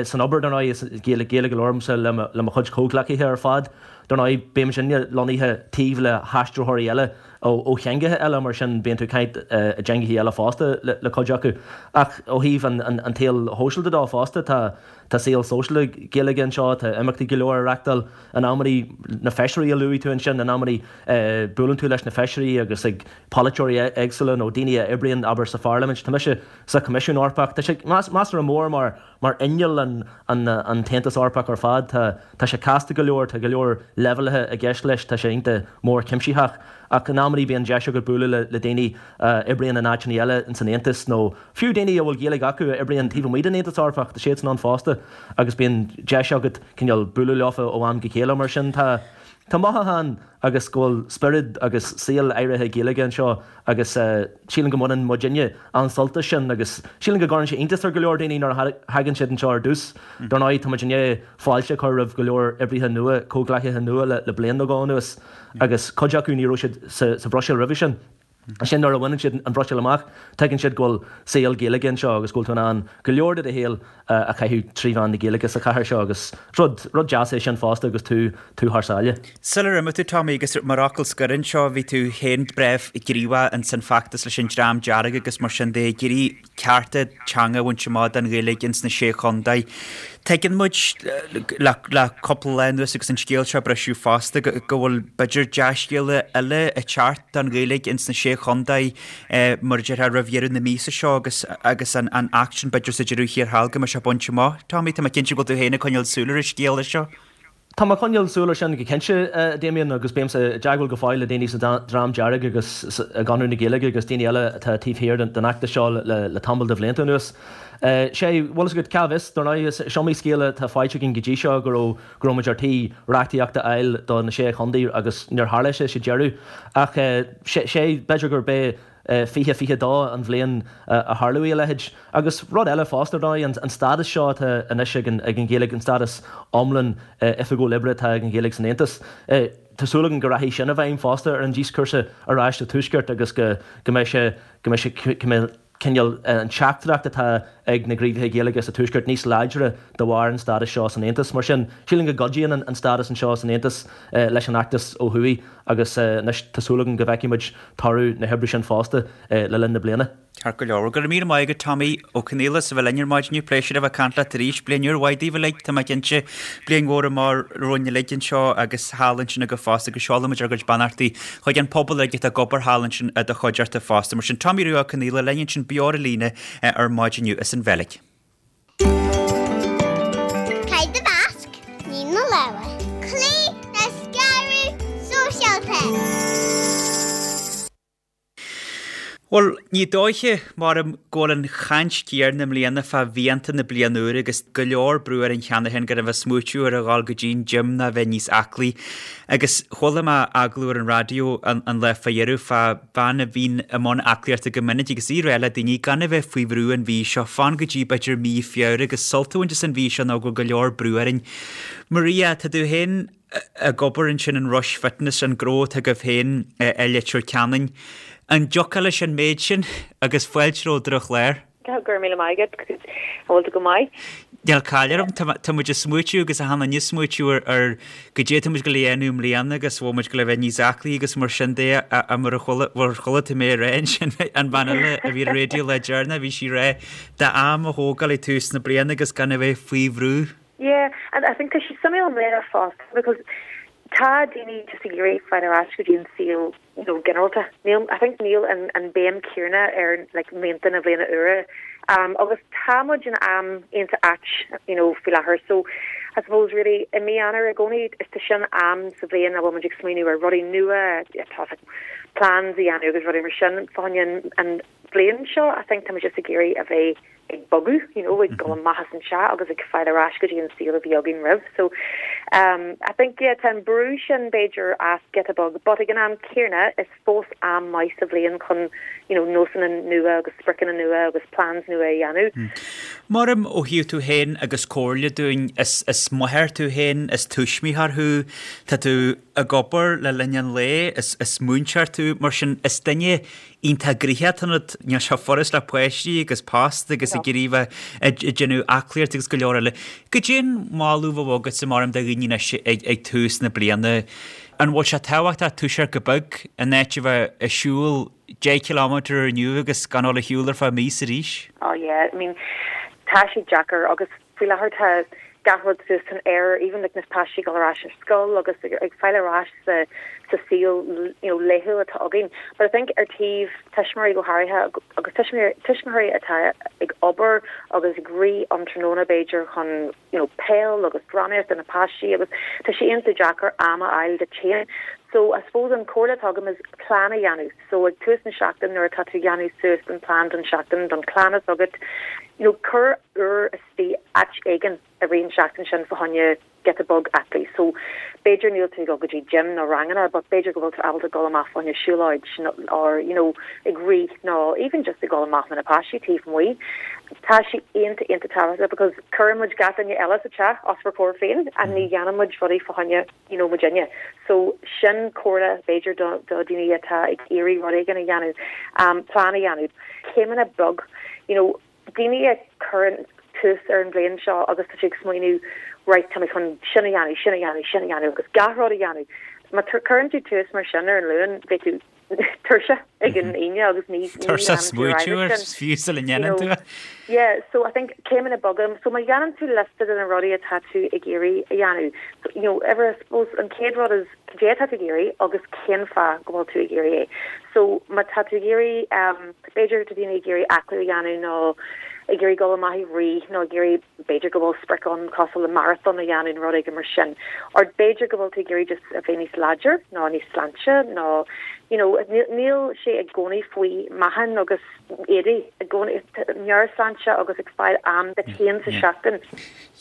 San obair, dar ndóigh, is Gaeilge, Gaeilge a labhraímse le mo, le mo chuid comhghleacaithe ar fad. Dar ndóigh, bímidne lonnaithe taobh le haistritheoirí eile. ó theangacha eile, mar sin bíonn tú ag caint i dteangacha eile fosta le cuid acu. Ach ó thaobh an tsaoil shóisialta de fosta, tá tá saol sóisialta Gaeilge anseo, tá imeachtaí go leor á reachtáil in amannaí, na feisirí a luaigh tú ansin, in amannaí buaileann tú leis na feisirí agus ag polaiteoirí éagsúla nó daoine a oibríonn, abair, sa pharlaimint. Tá mise sa Choimisiún Eorpach. Tá sé measartha mór mar Mar inneall an tAontas Eorpach ar fad, tá sé casta go leor, tá go leor leibhéalaithe i gceist leis, tá sé iontach mór cuimsitheach. Ach in amannaí bíonn deis agat bualadh le daoine a oibríonn in áiteanna eile ins an Aontas nó fiú daoine a bhfuil Gaeilge acu a oibríonn taobh amuigh den Aontas Eorpach, tá siadsan ann fosta agus bíonn deis agat cineál bualadh leofa ó am go chéile. Mar sin tá tá mothúchán agus go bhfuil spiorad agus saol áirithe Gaeilge anseo agus sílim go mbaineann muidinne an-sult as sin agus sílim go gcuireann sé iontas ar go leor daoine nuair a thagann siad anseo ar dtús. Dar ndóigh, tá muid i ndiaidh fáilte a chur roimh go leor oibrithe nua, comhghleacaithe nua le bliain nó dhó anuas agus cuid acu ní raibh siad sa Bhruiséil roimhe sin. Ansin nuair a bhaineann siad an Bhruiséil amach, tuigeann siad go bhfuil saol Gaeilge anseo agus go bhfuil tú in ann go leor de do shaol a chaitheamh trí mheán na Gaeilge sa chathair seo agus rud, rud deas é sin fosta agus tú, tú thar sáile. Sular imigh tú, Tommy, agus mar fhocal scoir anseo, bhí tú féin breá gníomhach ins an feachtas leis an Dream Dearg agus mar sin de, ag iarraidh cearta teanga a bhaint amach don Ghaeilge ins na Sé Chontae. Tuigeann muid le cúpla lá anuas agus an scéal seo ag briseadh fosta go bhfuil b'fhéidir dea-scéala eile ag teacht don Ghaeilge ins na Sé Chontae mar a déarfá roimh dheireadh na míosa seo agus agus an Acht sin b'fhéidir sa deireadh thiar thall go mbeidh sé bainte amach. Tommy, tá mé cinnte go bhfuil tú féin ag coinneáil súil ar an scéala seo. Tá mé ag coinneáil súil air sin go cinnte, a Damien, agus bímse i dteagmháil go fóill le daoine sa Dream Dearg agus i gConradh na Gaeilge agus daoine eile atá taobh thiar den fheachtas seo le tamall de bhlianta anuas. Sé, bhfuil fhios agat, cá bhfios, dar ndóigh, is iomaí scéal atá faighte againn go dtí seo go raibh, go raibh muid ar tí reachtaíocht a fháil do na Sé Chontae agus níor tharla sé sa deireadh. Ach sé, b'fhéidir gurb é 2022 an bhliain a tharlóidh a leithéid. Agus rud eile fosta, ar ndóigh, an stádas seo atá anois ag an Ghaeilge, an stádas iomlán oifigiúil oibre atá ag an Ghaeilge san Aontas, tá súil againn go rachaidh sin i bhfeidhm fosta ar an díoscúrsa ar ais sa Tuaisceart agus go mbeidh sé, go mbeidh sé, go mbeidh cineál an teachtaireacht atá ag na gníomhaithe Gaeilge sa Tuaisceart níos láidre de bharr an stádais seo san Aontas. Mar sin, sílim go gcuidíonn an stádas anseo san Aontas leis an fheachtas ó thuaidh agus anois tá súil agam go bhfeicfidh muid toradh na hoibre sin fosta le linn na bliana. Ceart go leor. Go raibh míle maith agat Tommy Ó Conghaile as a bheith linn ar maidin inniu. Pléisiúr a bheith ag caint leat arís. Bliain úr mhaith daoibh uilig, tá mé cinnte. Bliain mhór amach romhainn uilig anseo agus thall ansin agaibh fosta agus seolann muid ár gcuid beannachtaí chuig an pobal uilig atá ag obair thall ansin i do chuideachta fosta. Mar sin Tommy Rua Ó Conghaile linn ansin beo ar an líne ar maidin inniu as an Bheilg. Caith do mhasc, nigh do lámha. Cloígh le scaradh sóisialta. Bhuel, ní dóiche, maram, go bhfuil an chaint chéanna i mbliana fá mhianta na bliana úire agus go leor brú orainn cheana féin gan a bheith ag smaoitiú ar a dhul go dtí an gym ná a bheith níos aclaí. Agus chuala mé agallamh ar an raidió an lá fá dheireadh fá bhean a bhíonn i mbun aclaíochta go minic agus í ag rá le daoine gan a bheith faoi bhrú an mhí seo, fan go dtí b'fhéidir mí Feabhra agus sult a bhaint as an mhí seo nó go bhfuil go leor brú orainn. Maria, tá tú féin ag obair ansin in Rush Fitness, an gnó atá agaibh féin i Leitir Ceanainn. An dtiocfá leis an méid sin agus fáilte romhat ar an chlár? Go raibh míle maith agat, an bhfuil tú go maith? Níl caill orm, tá muid ag smaoitiú agus achan duine ag smaoitiú ar goidé atá muid ag gabháil a dhéanamh i mbliana agus bhfuil muid ag gabháil a bheith níos aclaí agus mar sin de a mar a chuala, mar chuala tú mé ag rá ansin an bhean eile a bhí ar an raidió lá deireanach bhí sí ag rá d'am a thógáil ag tús na bliana agus gan a bheith faoi bhrú. Yeah, and I think tá sé suimiúil i mbliana fosta because tá daoine just ag iarraidh fáil ar ais go dtí an saol you know ginearálta. Níl, I think níl an an béim céanna ar like mianta na bliana úire. Um agus tá muid in am iontach ait you know faoi láthair so I suppose really i mí Eanáir i gcónaí is tá sin am sa bhliain a bhfuil muid ag smaoineamh ar rudaí nua, tá like plans a dhéanamh agus rudaí mar sin. Fá choinne an an bhliain seo I think tá muid just ag iarraidh a bheith ag bogadh, you know, ag dul amach as an teach agus ag fáil ar ais go dtí an saol a bhí againn roimh. So um I think yeah tá an brú sin b'fhéidir as giota beag but ag an am céanna is fós am maith sa bhliain chun you know nósanna nua agus spriocanna nua agus plans nua a dhéanamh. Maram ó thaobh tú féin agus comhairle dúinn, is is máthair tú féin, is tuismitheoir thú, tá tú ag obair le linn an lae, is is múinteoir tú, mar sin is duine iontach gnoitheach atá ionat, níl sé furast le páistí agus post agus ag iarraidh bheith ag déanamh aclaíocht agus go leor eile. Goidé an moladh a bheadh agatsa maram do dhaoine anois ag tús na bliana. An bhfuil sé tábhachtach toiseacht go beag in áit a bheith ag siúl 10 kilometre inniu agus gan dul ag siúl ar feadh míosa arís? Oh yeah, I mean tá sé deacair agus Faoi láthair tá gach rud suas san aer, even like na páistí ag dul ar ais ar scoil agus ag fáil ar ais sa sa saol you know laethúil atá againn. But I think ar taobh tuismitheoirí go háirithe agus tuismitheoirí tuismitheoirí atá ag obair agus ag rith um tráthnóna b'fhéidir chun you know peil agus drámaíocht do na páistí agus tá sé iontach deacair am a fháil duit féin. So I suppose an comhairle atá agam is plean a dhéanamh. So ag tús na seachtaine nuair atá tú ag déanamh suas an plean don seachtain don chlann atá agat. You know, cuir uair istigh áit éigin i rith an seachtain sin fá choinne giota beag aclaí. So, b'fhéidir níl tú ag dul go dtí gym nó ranganna but b'fhéidir go bhfuil tú ábalta dul amach fá choinne siúlóid or, you know, ag rith nó even just ag dul amach le na páistí taobh amuigh. Tá sé iontach, iontach tábhachtach because cuireann muid gach duine eile sa teach os bhur comhair féin and ní dhéanann muid rudaí fá choinne, you know, muidinne. So, sin comhairle b'fhéidir do do daoine atá ag iarraidh rud éigin a dhéanamh, um, plean a dhéanamh. Céimeanna beag, you know, daoine a chuireann tús ar an bhliain seo agus tá siad ag smaoineamh right tá mé chun sin a dhéanamh, sin a dhéanamh, sin a dhéanamh agus gach rud a dhéanamh. Má cuireann tú tús mar sin ar an Luan beidh tú tuirseach ag an Aoine agus ní Tuirseach smaoitiú air fiú sula ndéanann tú é. Yeah, so I think céimeanna beaga, so má dhéanann tú liosta de na rudaí atá tú ag iarraidh a dhéanamh, so you know, ever I suppose an chéad rud is cad é atá tú ag iarraidh agus cén fáth go bhfuil tú ag iarraidh é. So má tá tú ag iarraidh um, b'fhéidir tá daoine ag iarraidh aclú a dhéanamh nó ag iarraidh dul amach ag rith nó ag iarraidh b'fhéidir go bhfuil sprioc ann cosúil le marathon a dhéanamh nó rud éigin mar sin. Or b'fhéidir go bhfuil tú ag iarraidh just a bheith níos láidir nó níos sláinte nó you know níl sé i gcónaí faoi meáchan agus éadaí i gcónaí meabhairshláinte agus ag fáil am duit féin sa seachtain.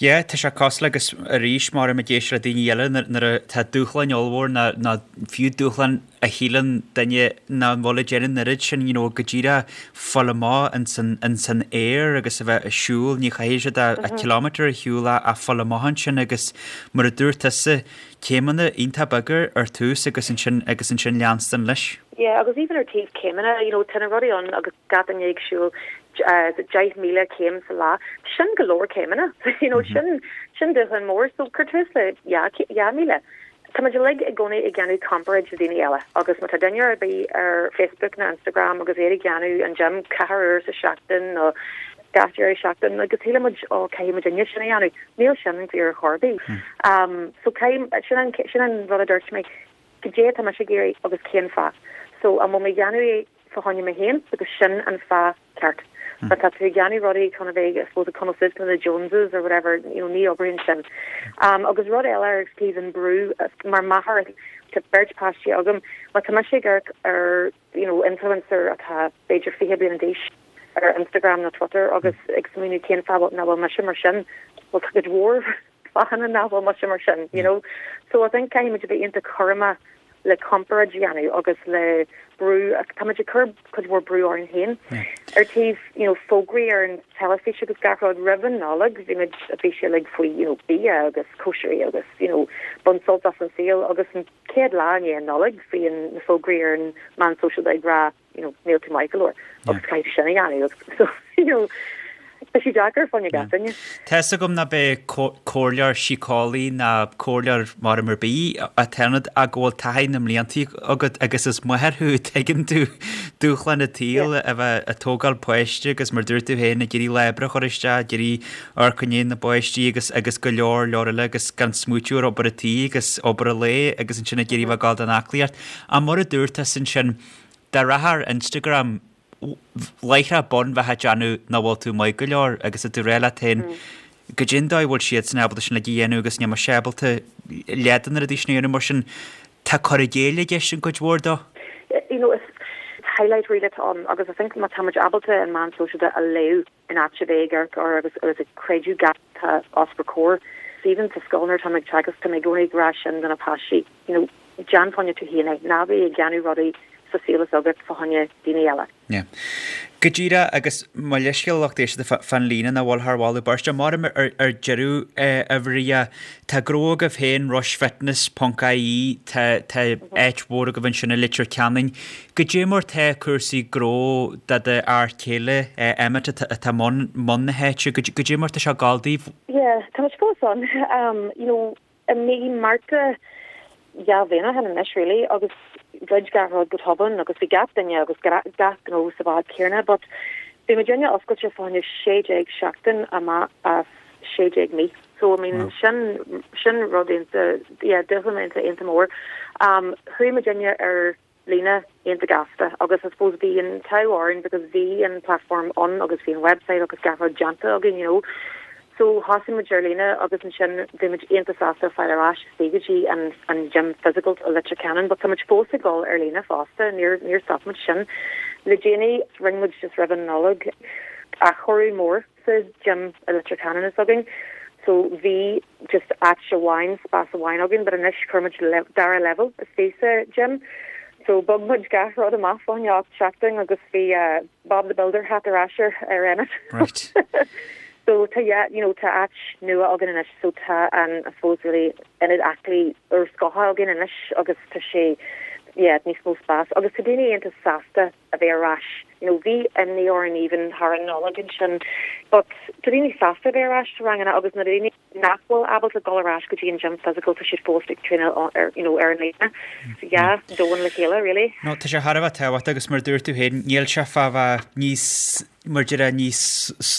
Yeah, tá sé cosúil agus arís mar a ag éisteacht le daoine eile nuair atá dúshláin ollmhór nó fiú dúshlán a shíleann duine nach bhfuil ag déanamh an oiread sin, you know, go díreach fáil amach ins an, ins an aer agus a bheith ag siúl, ní chaithfidh siad a, a kilometre a shiúl ach, ach fáil amach ansin agus mar a dúirt tusa, céimeanna iontach beaga ar tús agus ansin, agus ansin leanstan leis. Yeah, agus even ar taobh céimeanna, you know, tá na rudaí ann agus gach duine ag siúl 10,000 céim sa lá, sin go leor céimeanna, you know, sin, sin dúshlán mór, so cuir tús le 2,000. Tá muid uilig i gcónaí ag déanamh comparáid le daoine eile agus má tá duine ar bith ar Facebook nó Instagram agus iad ag déanamh an gym ceathair uair sa seachtain nó gach deireadh seachtaine agus síleann muid ó caithfidh muid inne sin a dhéanamh. Níl sin fíor ar chor ar bith. So caithfidh, sin an, sin an rud a dúirt mé, cad é atá mise ag iarraidh agus cén fáth. So an bhfuil mé ag déanamh é fá choinne mé féin agus sin an fáth ceart. Má tá tú ag déanamh rudaí chun a bheith, I suppose, ag coinneáil suas le na Joneses or whatever, you know, ní oibríonn sin. Um, agus rud eile ar taobh an brú, mar máthair, tá beirt páistí agam, má tá mise ag amharc ar, you know, influencer atá b'fhéidir 20 bliain d'aois ar Instagram nó Twitter agus ag smaoineamh cén fáth nach bhfuil mise mar sin, well tá cuid mhór fáthanna nach bhfuil mise mar sin, you know. So I think caithfidh muid a bheith iontach cúramach le comparáid a dhéanamh agus le brú, tá muid ag cur cuid mhór brú orainn féin. Ar taobh, you know, fógraí ar an teilifís agus gach rud roimh an Nollaig, bhí muid, bhí sé uilig faoi, you know, bia agus cóisirí agus, you know, bain sult as an saol agus an chéad lá i ndiaidh an Nollaig bhí an, na fógraí ar an meán sóisialta ag rá, you know, níl tú maith go leor agus caithfidh tú sin a dhéanamh agus so, you know, tá sé deacair fá choinne gach duine. Tá fhios agam ná beidh comhairleoir síceolaí ná comhairleoir mar ar bith atá ionat ach go bhfuil taithí na mblianta agat agus is máthair thú, tuigeann tú dúshlán an tsaoil a bheith ag tógáil páiste agus mar dúirt tú féin ag iarraidh lá oibre a chur isteach, ag iarraidh amharc i ndiaidh na bpáistí agus agus go leor leor eile agus gan smaoitiú ar obair an tí agus obair an lae agus ansin ag iarraidh bheith ag gabháil don aclaíocht. Ach mar a dúirt tusa ansin, Dá rachfá ar Instagram láithreach bonn bheifeá ag déanamh nach bhfuil tú maith go leor agus tá tú ag rá leat féin goidé an dóigh a bhfuil siadsan ábalta sin uilig a dhéanamh agus níl mise ábalta leath de na rudaí sin a dhéanamh mar sin tá cur i gcéill i gceist an cuid mhór dó. You know, is highlight reel atá ann agus I think má tá muid ábalta an meán sóisialta a léamh in áit a bheith ag amharc air agus agus ag creidiúint gach atá os bhur comhair. Even sa scoil nuair atá mé ag teagasc tá mé i gcónaí ag rá sin do na páistí, you know, déan fá choinne tú féin é, ná bí ag déanamh rudaí sa saol is agat fá choinne daoine eile. Yeah. Go díreach, agus mo leithscéal a lucht éisteachta fán líne nach bhfuil thar mholadh beirte. Maram ar deireadh, a Mharia, tá gnó agaibh féin, rushfitness ponc ie, tá tá áit mhór agaibh ansin i Leitir Ceanainn. Goidé mar tá cúrsaí gnó do do fhear céile, Emmet, atá i mbun na háite, goidé mar tá sé ag gabháil daoibh? Yeah, tá muid fós ann. You know, i mí Márta dhá bhliain ó shin anois really agus dhruid gach rud go tobann agus bhí gach duine agus gach gnó sa bhád céanna but bhí muidinne oscailte fá choinne 16 seachtain amach as 16 mí. So I mean sin sin rud iontach yeah dúshlán iontach iontach mór. Um chuaigh muidinne ar líne iontach gasta agus I suppose bhí an t-ádh orainn because bhí an platform ann agus bhí an website agus gach rud déanta againn you know. So thosaigh muid ar líne agus ansin bhí muid iontach sásta fáil ar ais istigh go dtí an an gym physical i Leitir Ceanainn but tá muid fós ag dul ar líne fosta, níor níor stop muid sin. Le déanaí rinne muid just roimh an Nollaig athchóiriú mór. sa gym i Leitir Ceanainn s'againn so bhí just áit amháin, spás amháin againn but anois chuir muid dara level istigh sa gym so bhog muid gach rud amach fá choinne 8 seachtain agus bhí Bob the Builder hat ar ais ar ar Emmet. Right. So tá yeah you know tá áit nua againn anois so tá an I suppose really ionad aclaí úrscothach againn anois agus tá sé yeah níos mó spás agus tá daoine iontach sásta a bheith ar ais you know bhí imní orainn even thar an Nollaig ansin but tá daoine sásta a bheith ar ais sa ranganna agus na daoine nach bhfuil ábalta dul ar ais go dtí an gym physical tá siad fós ag traenáil ar you know ar an líne so yeah domhan le chéile really. No tá sé thar a bheith tábhachtach agus mar a dúirt tú féin níl sé fá bheith níos mar a déarfá níos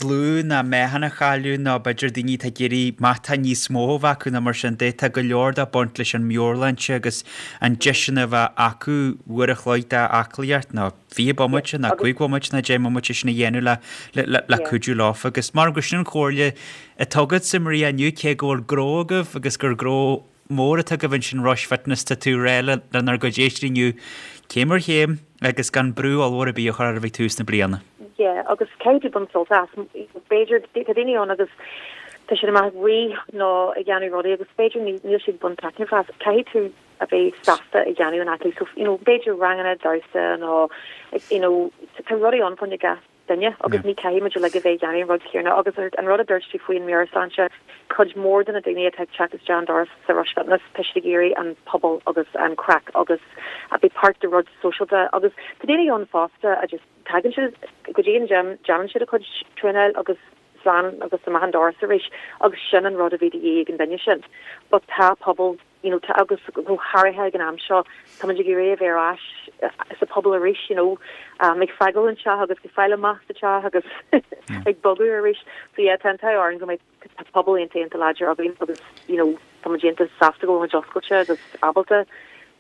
lú ná meáchan a chailleadh nó b'fhéidir daoine atá ag iarraidh meáchan níos mó a bheith acu nó mar sin de. Tá go leor de ag baint leis an meabhairshláinte agus an deis sin a bheith acu uair a chloig d'aclaíocht nó 20 bomaite nó 5 bhomaite nó 10 mbomaite sin a dhéanamh le cuidiú leofa agus mar gur sin an chomhairle atá agatsa Maria inniu cé go bhfuil gnó agaibh agus gur gnó mór atá agaibh ansin Rush Fitness, tá tú ag rá lenár gcuid éisteoirí inniu céim ar chéim agus gan brú ollmhór ar bith a chur oraibh ag tús na bliana. Yeah, agus caithfidh tú baint sult as. B'fhéidir, tá daoine ann agus tá siad amach ag rith nó ag déanamh rudaí agus b'fhéidir níl siad ag baint taitneamh as. Caithfidh tú a bheith sásta ag déanamh an aclaí. So, you know, b'fhéidir ranganna damhsa nó, you know, tá rudaí ann fá choinne gach duine agus ní caithfidh muid uilig a bheith ag déanamh an rud céanna agus an rud a dúirt tú faoi an meabhairshláinte, cuid mhór de na daoine atá ag teacht isteach an doras sa Rush Fitness, tá siad ag iarraidh an pobal agus an craic agus a bheith páirt de rud sóisialta agus tá daoine ann fosta a just tagann siad go dtí an gym, déanann siad a cuid traenáil agus slán agus amach an doras arís agus sin an rud a bhí de dhíth ag an duine sin. But tá pobal you know, tá, agus go háirithe ag an am seo, tá muid ag iarraidh a bheith ar ais sa pobal arís, you know, um, ag fágáil an teach agus ag fáil amach sa teach agus ag bogadh arís. So yeah, tá an t-ádh orainn go mbeidh pobal iontach iontach láidir againn agus, you know, tá muid iontach sásta go bhfuil muid oscailte agus ábalta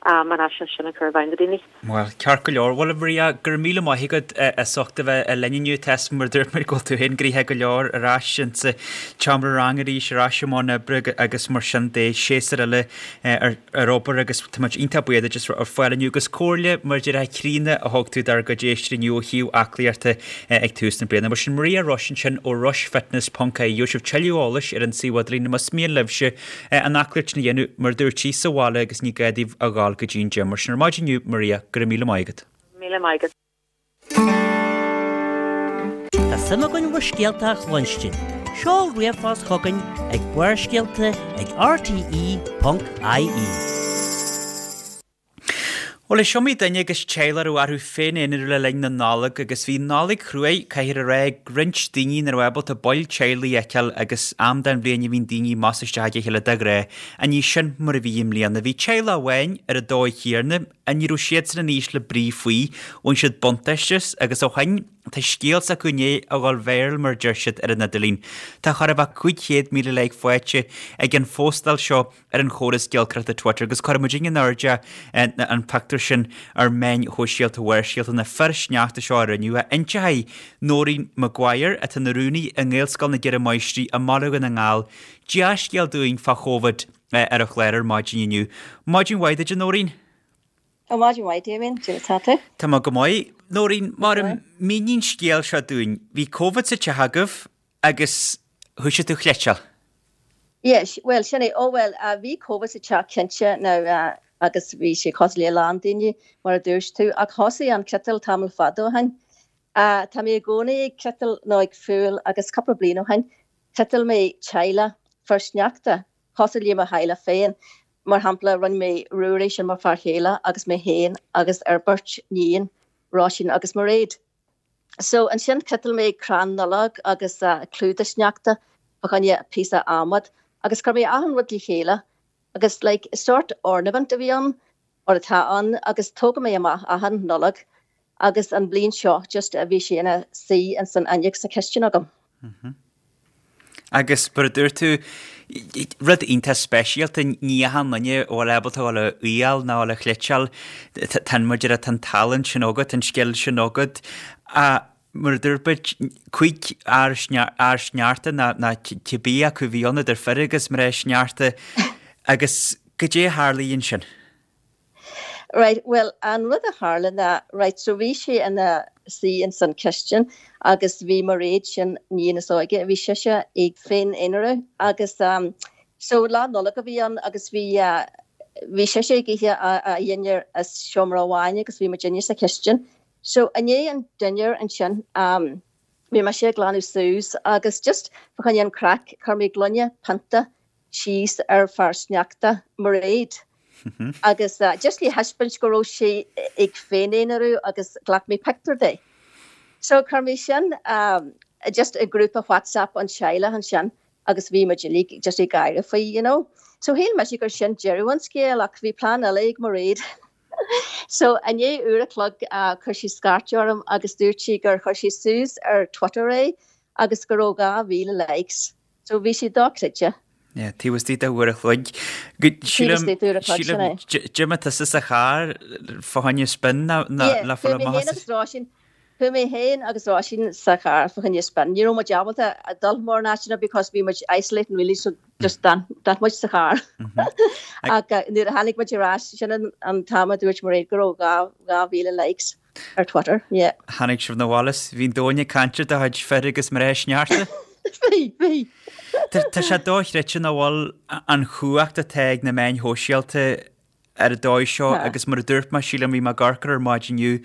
um, an fhaisnéis sin a chur i bhfeidhm do daoine. Bhuel, ceart go leor. Bhuel, a Mharia, go raibh míle maith agat as ucht a bheith linn inniu. Tá 'fhios a'm mar dúirt muid go bhfuil tú féin gnoitheach go leor ar ais insa tseomra ranga arís, ar ais i mbun oibre agus mar sin de, séasúr eile ar obair agus tá muid iontach buíoch duit as fáil inniu agus comhairle mar a déarfá críonna a thug tú dár gcuid éisteoirí inniu ó thaobh aclaíochta ag tús na bliana. Mar sin Maria Rush ansin ó rushfitness ponc ie. Gheobhaidh sibh tuilleadh eolais ar an suíomh idirlín más mian libhse an aclaíocht sin a dhéanamh, mar a dúirt sí, sa bhaile agus ní gá daoibh a ghabháil go dtí an gym. Mar sin ar maidin inniu, Maria, go raibh míle maith agat. Míle maith agat. Tá suim againn bhur scéalta a chluinstin. Seol ríomhphost chugainn ag barrscéalta ag rte.ie. Bhuel, is iomaí duine agus teaghlach a raibh orthu féin-aonarú le linn na Nollag agus bhí Nollaig chruaidh, caithfear a rá, ag roinnt daoine nach raibh ábalta baill teaghlaigh a fheiceáil agus am den bhliain a bhíonn daoine amach is isteach ag a chéile de ghnáth. Ach ní sin mar a bhí i mbliana. Bhí teaghlach amháin ar an dóigh chéanna, ach ní raibh siadsan in ísle brí faoi. Bhain siad buntáiste as agus ó shin tá scéal s'acu i ndiaidh a dhul viral mar a deir siad ar an idirlíon. Tá chóir a bheith 500,000 like faighte ag an phóstáil seo ar an chóras giolcaireachta Twitter agus cuirfidh muid in airde an pictiúr sin ar mheáin shóisialta Bharrscéalta na fir sneachta seo a rinneadh. Inseoidh Nóirín Maguire, atá ina rúnaí i nGaelscoil na gCeithre Máistrí i mBaile Dhún na nGall, dea-scéal dúinn fá Chóvid ar an chlár ar maidin inniu. Maidin mhaith duit, a Nóirín. Ó, maidin mhaith, Damien. Cad é mar atá tú? Tá mé go maith. Nóirín, mar mínigh an scéal seo dúinn. Bhí Covid sa teach agaibh Agus thoisigh tú a chleiteáil? Yes, bhuel, sin é. Ó, bhuel, bhí Covid sa teach cinnte now agus bhí sé cosúil le a lán daoine, mar a dúirt tú, ach thosaigh an cniotáil tamall fada ó shin. Tá mé i gcónaí ag cniotáil nó ag fuáil agus cúpla bliain ó shin, chniotáil mé teaghlach fir sneachta, cosúil le mo theaghlach féin. Mar shampla, rinne mé Ruairí, sin mo fear chéile, agus mé féin agus ár beirt níon, Róisín agus Mairéad. So ansin chniotáil mé crann Nollag agus clúdach sneachta fá choinne píosa adhmad agus chuir mé achan rud le chéile agus like sort ornament a bhí ann or atá ann agus tógann mé amach achan Nollag agus an bhliain seo just bhí sé ina suí ins an fhuinneog sa chistin agam. Agus mar a dúirt tú, rud iontach speisialta, ní achan duine a bhfuil ábalta a dhul a fhuáil nó a dhul a chliteáil, tá an, mar a déarfá, tá an tallann sin agat, an scil sin agat. Ach mar a dúirt muid, 5 fhear sneachta nó cibé acu a bhí ann idir fir agus mná sneachta agus goidé a tharlaigh ansin? Right, bhuel, an rud a tharla ná, right, so bhí sé ina suí ins an chistin agus bhí Mairéad sin níon is óige, bhí sise ag féin-aonarú agus so Lá Nollag a bhí ann agus bhí bhí sise ag ithe a dhinnéar i seomra amháin agus bhí muidinne sa chistin. So i ndiaidh an dinnéar ansin bhí mise ag glanadh suas agus just fá choinne an craic chuir mé gloine pionta síos ar fear sneachta Mairéad agus just le thaispeáint go raibh sí ag féin-aonarú agus ghlac mé pictiúr di. So chuir mé sin just i grúpa WhatsApp an teaghlach ansin agus bhí muid uilig just ag gáire faoi, you know. So shíl mise gur sin deireadh an scéil ach bhí plean eile ag Mairéad. So i ndiaidh uair a chloig chuir sí scairt orm agus dúirt sí gur chuir sí suas ar Twitter é agus go raibh 2,000 likes. So bhí sé dochreidte. Yeah, taobh istigh de uair a chloig. Taobh istigh d'uair a chloig, sin é. D'imigh tusa sa charr fá choinne spin le fáil amach. Chuaigh mé féin agus Róisín, chuaigh mé féin agus Róisín sa charr fá choinne spin. Ní raibh muid ábalta dul mórán áiteanna because bhí muid isolating really so just d'fhan muid sa charr. Ach nuair a tháinig muid ar ais, sin an t-am a dúirt Mairéad go raibh 2,000 likes. Ar Twitter, yeah. Tháinig sibh 'na bhaile 's bhí an domhan ag caint ar do chuid fir agus mná sneachta. Bhí, bhí. Tá sé dochreidte nach bhfuil an chumhacht atá ag na meáin shóisialta ar an dóigh seo agus mar a dúirt mé, sílim, bhí mé ag amharc air ar maidin inniu,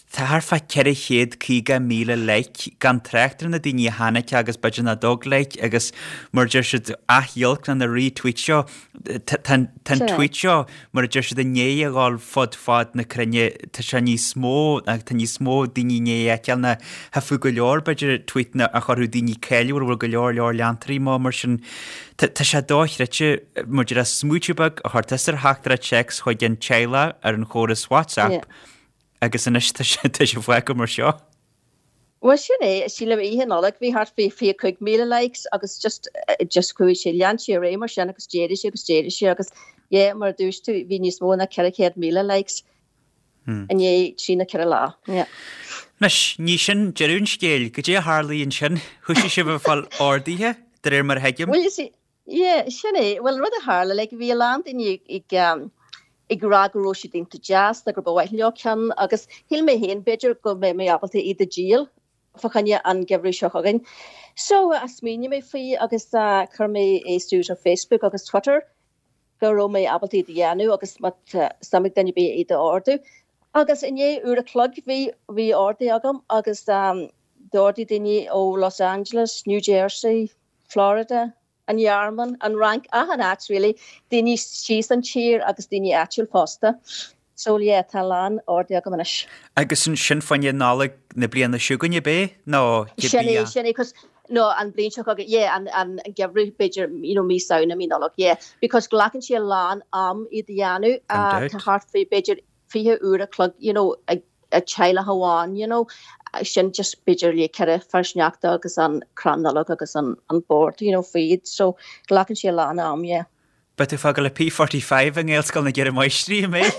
tá thart fá 450,000 like gan trácht ar na daoine a chonaic agus b'fhéidir nach dtug like agus mar a deir siad athghiolc na retweet seo. Tá an tweet seo, mar a deir siad, i ndiaidh a dhul fud fad na cruinne, tá sé níos mó, tá níos mó daoine i ndiaidh a fheiceáil ná thiocfadh go leor, b'fhéidir, tweetanna a chuirfeadh daoine cáiliúil a bhfuil go leor leor leantóirí acu mar sin. Tá sé dochreidte, mar a déarfá, smaoitiú beag a chur tusa ar theachtaireacht téacs chuig an teaghlach ar an chóras WhatsApp agus anois tá sé fágtha mar seo. Bhuel sin é, sílim oíche Nollag bhí thart faoi 25,000 likes agus just, just chuaigh sé, lean sé ar aghaidh mar sin agus d'éirigh sé agus d'éirigh sé agus yeah mar a dúirt tú bhí níos mó ná 400,000 likes i ndiaidh trí nó ceithre lá, yeah. Anois, ní sin deireadh an scéil, goidé a tharlaigh ansin? Thoisigh sibh ag fáil orduithe, de réir mar a thuigim? Bhuel you see, Yeah, sin é. Bhuel, rud a tharla, like, bhí a lán daoine ag, ag rá go raibh siad iontach deas nó gur ba mhaith leo ceann agus shíl mé féin b'fhéidir go mbeidh mé ábalta iad a dhíol fá choinne an geimhreadh seo chugainn. So, smaoinigh mé faoi agus chuir mé é suas ar Facebook agus Twitter go raibh mé ábalta iad a dhéanamh agus má tá suim ag duine ar bith iad a ordú. Agus i ndiaidh uair a chloig bhí, bhí orduithe agam agus d'ordaigh daoine ó Los Angeles, New Jersey, Florida, an Ghearmáin, an Fhrainc, achan áit really, daoine síos an tír agus daoine áitiúil fosta. So yeah, tá a lán orduithe agam anois. Agus sin fá choinne Nollaig na bliana seo chugainn ab é? Nó Sin é, sin é, 'cause no, an bhliain seo chugainn, yeah, an, an geimhreadh b'fhéidir, you know, mí Samhna, mí Nollag, yeah. Because glacann sé a lán am iad a dhéanamh, tá thart faoi b'fhéidir 20 uair a chloig, you know, ag teaghlach amháin, you know, sin just b'fhéidir le ceithre fear sneachta agus an crann Nollag agus an an bord, you know, faoi iad. So glacann sé a lán am, yeah. Beidh tú ag fágáil P45 i nGaelscoil na gCeithre Máistrí, an mbeidh?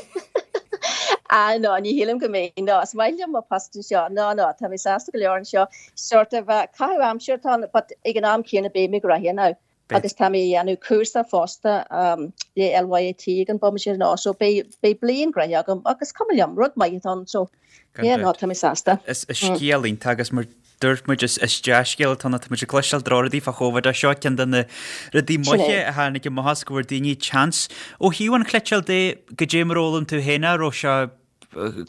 Ah no, ní shílim go mbeidh, no, is maith liom mo post anseo, no, no, tá mé sásta go leor anseo. Sort of caitheamh aimsire atá ann, but ag an am céanna beidh mé gnoitheach now. Agus tá mé ag déanamh cúrsa fosta le LYIT ag an bomaite nó so beidh beidh bliain gnoitheach agam agus cuma liom, rud maith atá ann so yeah no tá mé sásta. Is scéal iontach agus mar dúirt muid is dea-scéal atá ann, tá muid ag cloisteáil drochrudaí fá Chóvid ach seo ceann de na rudaí maithe a tháinig amach as go bhfuair daoine chance. Ó thaobh an chniotáil de, goidé mar a fhoghlaim tú féin é, raibh sé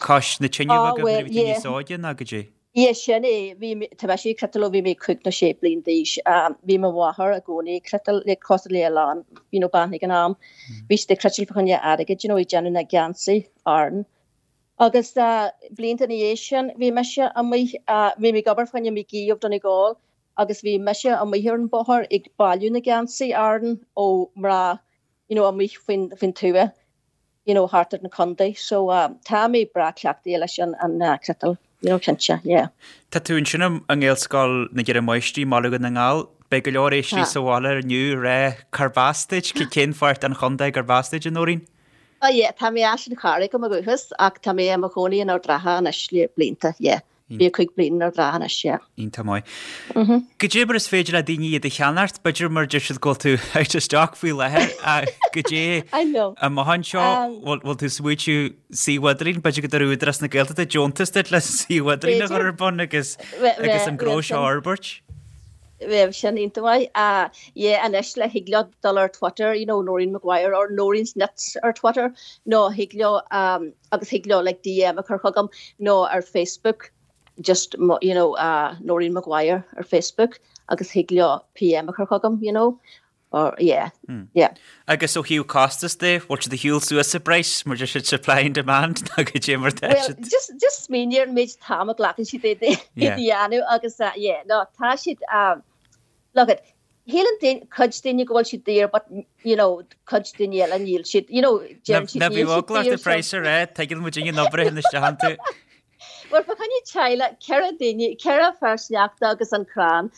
cois na tine agaibh nuair a bhí tú níos óige nó goidé? Yeah, sin é. Bhí mé, tá mise ag cniotáil ó bhí mé cúig nó sé bliain d'aois. Bhí mo mháthair i gcónaí ag cniotáil, like cosúil le a lán, you know, bean ag an am. Bhí siad ag cniotáil fá choinne airgid, you know, ag déanamh na geansaí Árann. Agus blianta ina dhiaidh sin, bhí mise amuigh, bhí mé ag obair fá choinne McGee of Donegal agus bhí mise amuigh ar an bóthar ag bailiú na geansaí Árann ó mná, you know, amuigh faoin, faoin tuath. you know, thart ar an contae. So tá mé breá cleachtaithe leis an an cniotáil, you know, cinnte, yeah. Tá tú ansin i nGaelscoil na gCeithre Máistrí i mBaile Dhún na nGall. Beidh go leor éisteoirí sa bhaile inniu ag rá cárb as duit, cén pháirt den chontae gurb as duit, a Nóirín? Oh yeah, tá mé as an Charraig ó mo dhúchas ach tá mé i mo chónaí in Ard an Rátha anois le blianta, yeah. 25 bliain in Ard an Rátha anois, yeah. Iontach maith. Goidé mar is féidir le daoine iad a cheannacht, b'fhéidir mar deir siad go bhfuil tú out of stock faoi láthair, goidé I know. amach anseo, bhfuil tú smaoitiú suíomh idirlín, b'fhéidir go dtabharfaidh Údarás na Gaeltachta deontas duit le suíomh idirlín a chur ar bun agus agus an gnó seo a fhorbairt? Bheadh sin iontach maith. Yeah, anois le thig leo dul ar Twitter, you know, Noreen Maguire or Noreen's Knits ar Twitter, nó thig leo, agus thig leo like DM a chur chugam, nó ar Facebook, just you know, Noreen Maguire ar Facebook, agus thig leo PM a chur chugam, you know, or yeah, yeah. Agus ó thaobh costas de, bhfuil siad ag siúl suas sa bpraghas, mar deir siad supply and demand, nó goidé mar tá siad? Well, just, just smaoinigh ar an méid t-am a ghlacann siad é a dhéanamh agus yeah, no, tá siad, look it, shíleann daoine, cuid daoine go bhfuil siad daor but, you know, cuid daoine eile níl siad, you know, deireann siad níl siad daor. Ná bíodh eagla ort an praghas a rá, tuigeann muid an obair a théann isteach iontu. Bhuel, fá choinne teaghlach, 4 duine, 4 fear sneachta agus an crann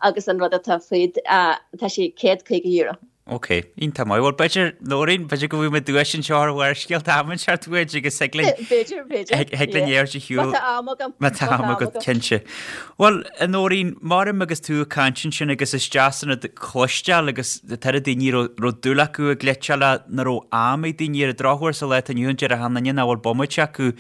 agus an rud atá fríd, tá sé €150. Ok, iontach maith. Bhuel, b'fhéidir, Nóirín, b'fhéidir go bhfaighidh muid duais anseo ar Bharrscéalta am inteacht uait agus thig linn... B'fhéidir, b'fhéidir. Thig linn é a shiúl. Má tá am agam. Má tá am agat, cinnte. Bhuel, a Nóirín, maram agus tú ag caint ansin agus is deas an rud cloisteáil agus tá oiread daoine a raibh dúil acu i gcniotáil ach nach raibh am ag daoine ar an drochuair sa lá atá inniu ann déarfadh achan duine nach bhfuil bomaite acu.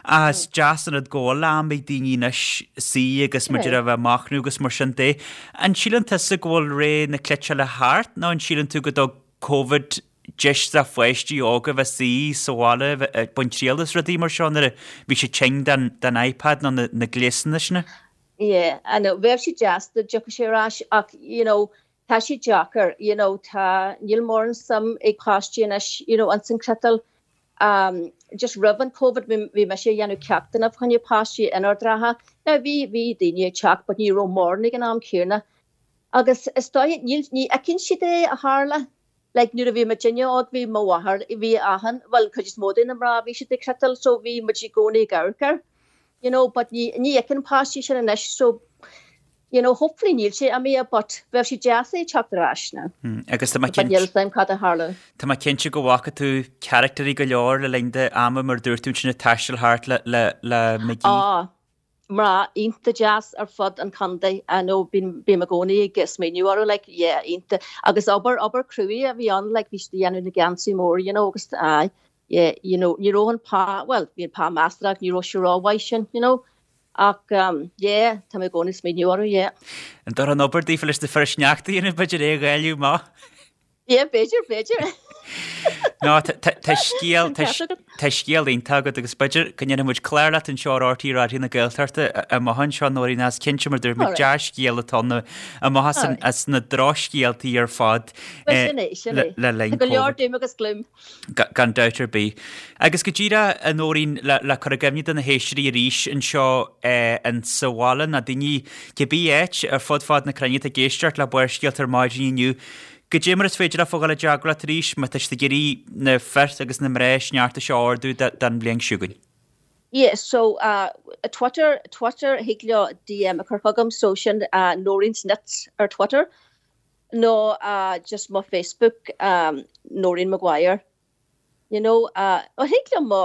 Ach is deas an rud go bhfuil am ag daoine anois suí agus mar a déarfá a bheith ag machnamh agus mar sin de. An síleann tusa go bhfuil ré na cniotála thart nó an síleann tú go dtug Covid deis do pháistí óga bheith suí sa bhaile ag baint triail as rudaí mar seo nuair a bhí siad tinn den iPad nó na gléasanna sin? Yeah, I know. Bheadh sé deas dá dtiocfadh sé ar ais ach, you know, tá sé deacair, you know, tá, níl mórán suim ag páistí anois, you know, ins an chniotáil. Um, just roimh an Covid bhí mise ag dhéanamh ceachtanna fá choinne páistí in Ard an Rátha. Now bhí, bhí daoine ag teacht but ní raibh mórán ag an am céanna. Agus is dóiche, níl, ní fheiceann siad é a tharla. Like nuair a bhí muidinne óg bhí mo mháthair, bhí achan, bhuel cuid is mó de na mná bhí siad ag cniotáil so bhí muid i gcónaí ag amharc air. You know, but ní, ní fheiceann páistí sin anois so you know, hopefully níl sé imithe but bheadh sé deas é teacht ar ais now. Agus tá mé cinnte. But níl 'fhios a'm cad a tharlódh. Tá mé cinnte go bhfaca tú caractairí go leor le linn d'ama mar dúirt tú ansin ag taisteal thart le le le McGee. Á, mná iontach deas ar fud an chontae, I know, bím bím i gcónaí ag smaoineamh orthu like, yeah, iontach. Agus obair, obair cruaidh a bhí ann like, bhí siad ag dhéanamh na geansaí mór, you know, agus aye, yeah, you know, ní raibh an pá, bhuel, bhí an pá measartha ach ní raibh sé rómhaith sin, you know. Ach yeah, tá mé i gcónaí ag smaoineamh orthu, yeah. An dtabharfá an obair daofa leis na fir sneachta a dhéanamh, b'fhéidir é a dháileadh amach? Yeah, b'fhéidir, b'fhéidir. No, tá scéal, tá scéal iontach agat agus b'fhéidir go ndéanfaidh muid clár leat anseo ar RTÉ Raidió na Gaeltachta amach anseo, Nóirín, is cinnte mar dúirt muid dea-scéal atá ann amach as na drochscéaltaí ar fad Sin é, sin é. le linn Tá go leor doom agus gloom. Gan dabht ar bith. Agus go díreach, a Nóirín, le cur i gcuimhne do na héisteoirí arís anseo in sa bhaile, nó daoine cibé áit ar fud fad na cruinne atá ag éisteacht le Barrscéalta ar maidin inniu, goidé mar is féidir leofa dhul i dteagmháil leat arís má tá siad ag iarraidh na fir agus na mná sneachta seo a ordú don bhliain seo chugainn. Yeah, so uh, Twitter, Twitter, thig leo DM a chur chugam, so sin uh, Noreen's Knits ar Twitter. Nó just mo Facebook Noreen Maguire you know ó thig liom mo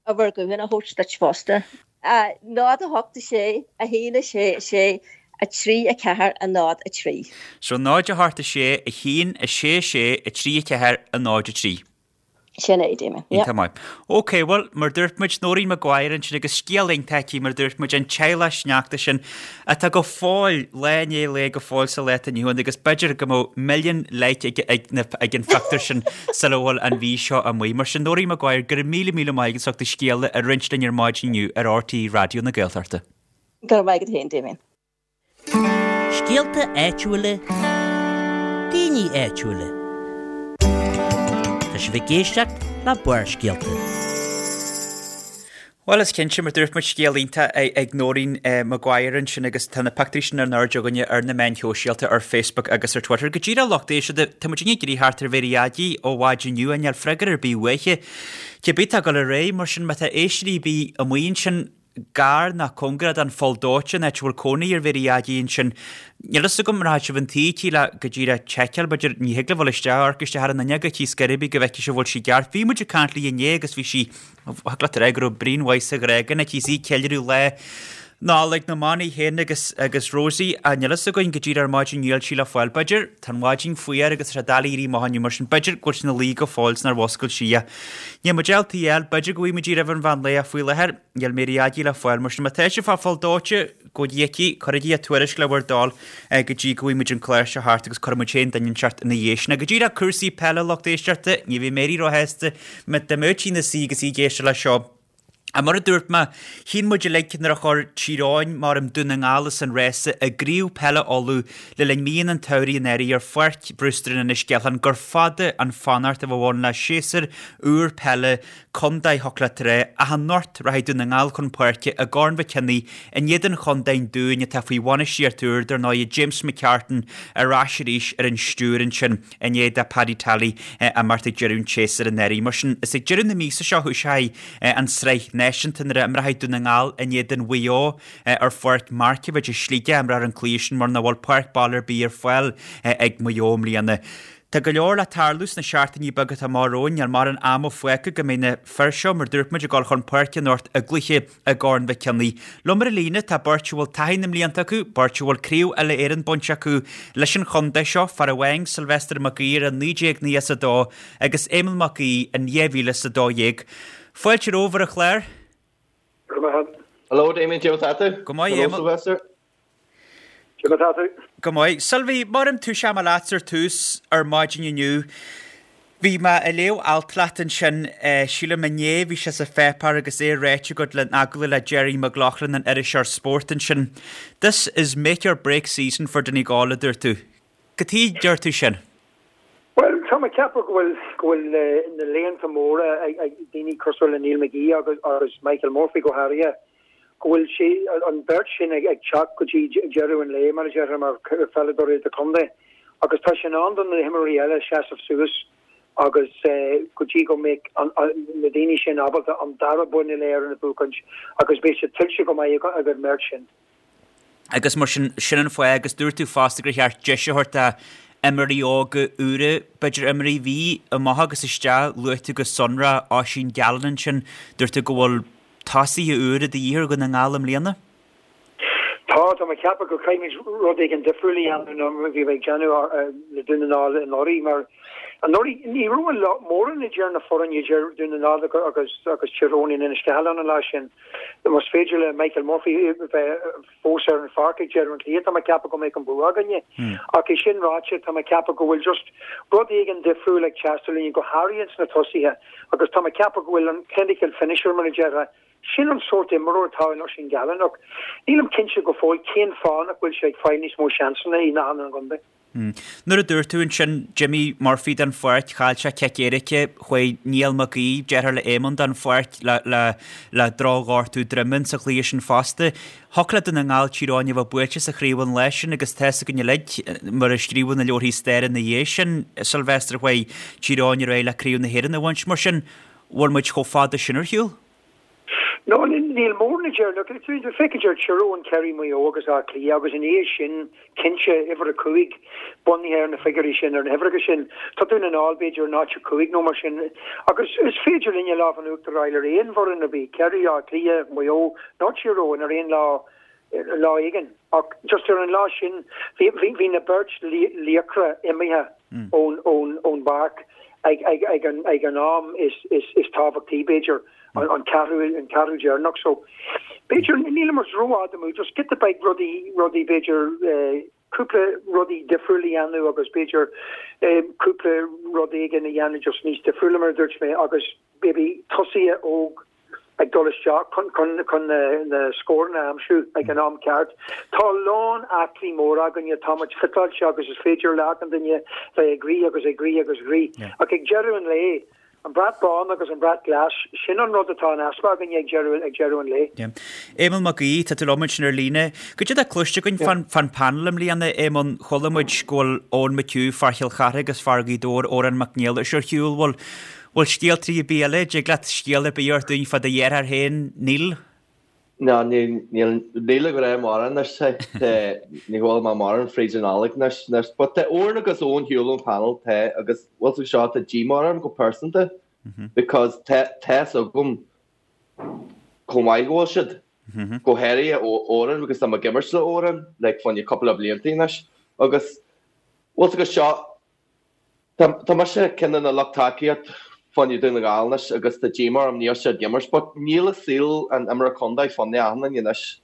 uimhir gutháin a thabhairt duit fosta. 0 8 6 1 6 6 3 4 0 3. So 0 8 6 1 6 6 3 4 0 3. Sin é, Damien. Yeah. Iontach maith. Ok, bhuel, mar dúirt muid, Noreen Maguire ansin agus scéal iontach aici, mar dúirt muid, an teaghlach sneachta sin atá go fóill, lá i ndiaidh lae go fóill sa lá atá inniu ann agus b'fhéidir go mbeadh milliún like ag, ag, na, ag an phictiúr sin sula bhfuil an mhí seo amuigh. Mar sin, Noreen Maguire, go raibh míle míle maith agat as ucht do scéal a roinnt linn ar maidin inniu ar RTÉ Raidió na Gaeltachta. Go raibh maith agat féin, Damien. Scéalta áitiúla, daoine áitiúla. Tá sibh ag éisteacht le Barrscéalta. Bhuel, is cinnte, mar dúirt muid, scéal iontach ag Noreen Maguire ansin agus tá na pictiúirí sin in airde againne ar na meáin shóisialta, ar Facebook agus ar Twitter. Go díreach lucht éisteachta, tá muid ag iarraidh theacht ar Mhary Aggie ó mhaidin inniu, níl freagra ar bith uaithi. Cibé tá ag dul ar aghaidh, mar sin má tá éisteoirí ar bith amuigh ansin, gar ná cóngarach don Pholl Dóite, an áit a bhfuil cónaí ar Mhary Aggie ansin. Níl fhios agam an rachaidh sibh chun tí aici le go díreach tseiceáil, b'fhéidir, ní thig libh dul isteach, amharc isteach ar an fhuinneog aici scor ar bith go bhfeicfidh sibh an bhfuil sí ceart. Bhí muid ag caint léi inné agus bhí sí, thig leat a rá go raibh braon mhaith sa ghrágan aici is í ag ceiliúradh lá. Nollaig na mban í féin agus agus Rosie ach níl fhios againn go díreach ar maidin níl sí le fáil. B'fhéidir, tá an mhaidin fuar agus tá sé doiligh éirí amach inniu mar sin b'fhéidir go bhfuil sí ina luí go fóill is nár mhuscail sí í. Níl muid ábalta a fháil, b'fhéidir go bhfaighidh muid í roimh an mheán lae ach faoi láthair níl Mary Aggie le fáil mar sin má tá sibh ag fáil dóite go dtiocfaidh, cuirigí a tuairisc le bhur dtoil go dtí go bhfaighidh muid an clár seo thart agus cuirfidh muid féin duine inteacht ina dhiaidh sin. Go díreach cúrsaí peile lucht éisteachta, ní bheidh Mary róshásta dá mbeadh sí ina suí agus í ag éisteacht leis seo. Ach mar a dúirt mé, chinn muid uilig nuair a chuir Tír Eoghain, maram, Dún na nGall as an rása i gCraobh Peile Uladh le linn míonna an tsamhraidh anuraidh ar Pháirc Brewster in Inis Ceithleann gur fada an fanacht a bheadh ann le séasúr úr peile contae a theacht le trá ach anocht rachaidh Dún na nGall chun páirce i gCorn Mhic Cionnaith in éadan chontae an Dúin atá faoi bhainistíocht úr, dar ndóigh, James McCartan ar ais arís ar an stiúir ansin. i ndiaidh do Paddy Tally imeacht ag deireadh an tséasúir anuraidh. Mar sin, is ag deireadh na míosa seo a thoiseoidh an tSraith Náisiúnta nuair a imreoidh Dún na nGall in éadan Mhaigh Eo ar Pháirc Markievicz i Sligeach, imreofar an cluiche sin mar nach bhfuil páirc baile ar bith ar fáil ag Maigh Eo i mbliana. Tá go leor le tarlú sna seachtainí beaga atá amach romhainn, níl mórán ama fágtha go mbeidh na fir seo, mar dúirt muid, ag dul chun páirce anocht i gcluiche i gCorn Mhic Cionnaith. Liom ar an líne tá beirt a bhfuil taithí na mblianta acu, beirt a bhfuil Craobh Uile-Éireann bainte acu leis an chontae seo, fear amháin, Sylvester Mac Uidhir i 1992 agus Éamonn Mac Aoidh in 2012. Fáilte romhaibh ar an chlár. Go raibh maith agat. Hello Damien, cén chaoi atá tú? Go maith, Hello Éamonn. Sylvester. Cén chaoi atá tú? Go maith. Sylvie, maram toiseoidh mé leatsa ar tús ar maidin inniu. Bhí mé ag léamh alt leat ansin, sílim inné, bhí sé sa pháipéar agus é ráite agat in agallamh le Gerry McLaughlin an iriseoir spóirt ansin. This is make or break season for Donegal, a dúirt tú. Cad chuige a deir tú sin? Bhuel, tá mé ag ceapadh go bhfuil, go bhfuil na laethanta móra ag daoine cosúil le Neil McGee agus, agus Michael Murphy go háirithe, go bhfuil sé, an bheirt sin ag teacht go dtí deireadh an lae, mar a déarfá, mar pheileadóirí idirchontae agus tá sé in am do na himreoirí eile seasamh suas agus go dtí go mbeidh na daoine sin ábalta an dara bonn uile-Éireann a bhuachaint agus beidh sé tuillte go maith ag an mbeirt sin. Agus mar sin, sin an fáth agus dúirt tú fosta gur cheart deis a thabhairt do imreoirí óga úra, b'fhéidir imreoirí a bhí amach agus isteach, luaigh tú go sonrach Oisín Gallen ansin, dúirt tú go bhfuil tosaithe úra de dhíth ar Dhún na nGall i mbliana? Tá, tá mé ag ceapadh go gcaithfimid rud éigin difriúil a dhéanamh ná mar a bhí ag déanamh le Dún na nGall anuraidh mar anuraidh ní raibh mórán idir na foirne idir Dún na nGall agus agus Tír Eoghain in Inis Ceithleann an lá sin. Más féidir le Michael Murphy bheith fós ar an pháirc ag deireadh an chluiche tá mé ag ceapadh go mbeadh an bua againne. Ach é sin ráite tá mé ag ceapadh go bhfuil just rud éigin difriúil ag teastáil uainn go háirithe ins na tosaithe. Agus tá mé ag ceapadh go bhfuil an clinical finisher, mar a déarfá, sin an sórt imreoir atá in Oisín Gallen ach nílim cinnte go fóill cén fáth nach bhfuil sé ag fáil níos mó seansanna i ndathanna an chontae. Nuair a dúirt tú ansin d'imigh Murphy den pháirc, chaill sé cic éirice, chuaigh Niall Mac Aoidh, deartháir le Éamonn, den pháirc le le le drochghortú droime sa chluiche sin fosta. Thiocfadh le Dún na nGall Tír Eoghain a bheith buailte sa chraobh an lá sin agus tá's againn uilig, mar a scríobhadh na leabharthaí staire ina dhiaidh sin, Sylvester, chuaigh Tír Eoghain ar aghaidh le Craobh na hÉireann a bhaint. Mar sin, bhfuil muid chomh fada sin ar shiúl? No, níl mórán idir, look, féach idir Tír Eoghain, Ciarraí, Maigh Eo agus Áth Cliath agus ina dhiaidh sin, cinnte, uimhir a 5, bunaithe ar na figiúirí sin, ar na huimhreacha sin, tá Dún na nGall, b'fhéidir, in áit a 5 nó mar sin. Agus is féidir linne lámh in uachtar a fháil ar aon bhfoireann ar bith, Ciarraí, Áth Cliath, Maigh Eo nó Tír Eoghain ar aon lá, lá éigin. Ach just ar an lá sin, bhí, bhí, bhí na beirt laochra imithe ón, ón, ón bpáirc ag, ag, ag an, ag an am is, is, is tábhachtaí, b'fhéidir. an ceathrú an ceathrú deireanach so b'fhéidir níl muid rófhada amú just giota beag rudaí rudaí b'fhéidir cúpla rudaí difriúil a dhéanamh agus b'fhéidir cúpla rud éigin a dhéanamh just níos difriúla mar a dúirt mé agus maybe tosaithe óg ag dul isteach chun chun chun na na scóranna a aimsiú ag an am ceart. Tá a lán aclaí mór againne, tá muid fiteáilte agus is féidir le achan duine bheith ag rith agus ag rith agus rith ach ag deireadh an lae An brat bán agus an brat glas, sin an rud atá in easpa againne ag deireadh, ag deireadh an lae. Yeah. Éamonn Mac Aoidh, tá tú liom ansin ar líne. Goidé atá cloiste againn fán, fán panel i mbliana, Éamonn? Chuala muid go bhfuil Eoin McHugh, fear Chill Chartha agus fear Ghaoth Dobhair, Odhrán Mac Niallais ar shiúl. Bhfuil, bhfuil scéalta ar bith eile? Dtig leat scéal ar bith a thabhairt dúinn fá do dheartháir féin, Neil? No, níl, níl, níl ag rá mórán anois, tá, ní bhfuil mé mórán fríd an Nollaig anois, anois, but tá Odhrán agus Eoin ar shiúl ón panel, tá, agus bhfuil fhios seo, tá díomá orm go pearsanta, because tá, tá's agam chomh maith go bhfuil siad. Go háirithe Odhrán because tá mé ag imirt le Odhrán like fá choinne cúpla blianta anois agus bhfuil 's agat seo tá tá mise ceann de na lucht tacaíocht fá choinne Dún na nGall anois agus tá díomá orm níl siad ag imirt but níl a saol an imreoir contae fá choinne achan duine anois.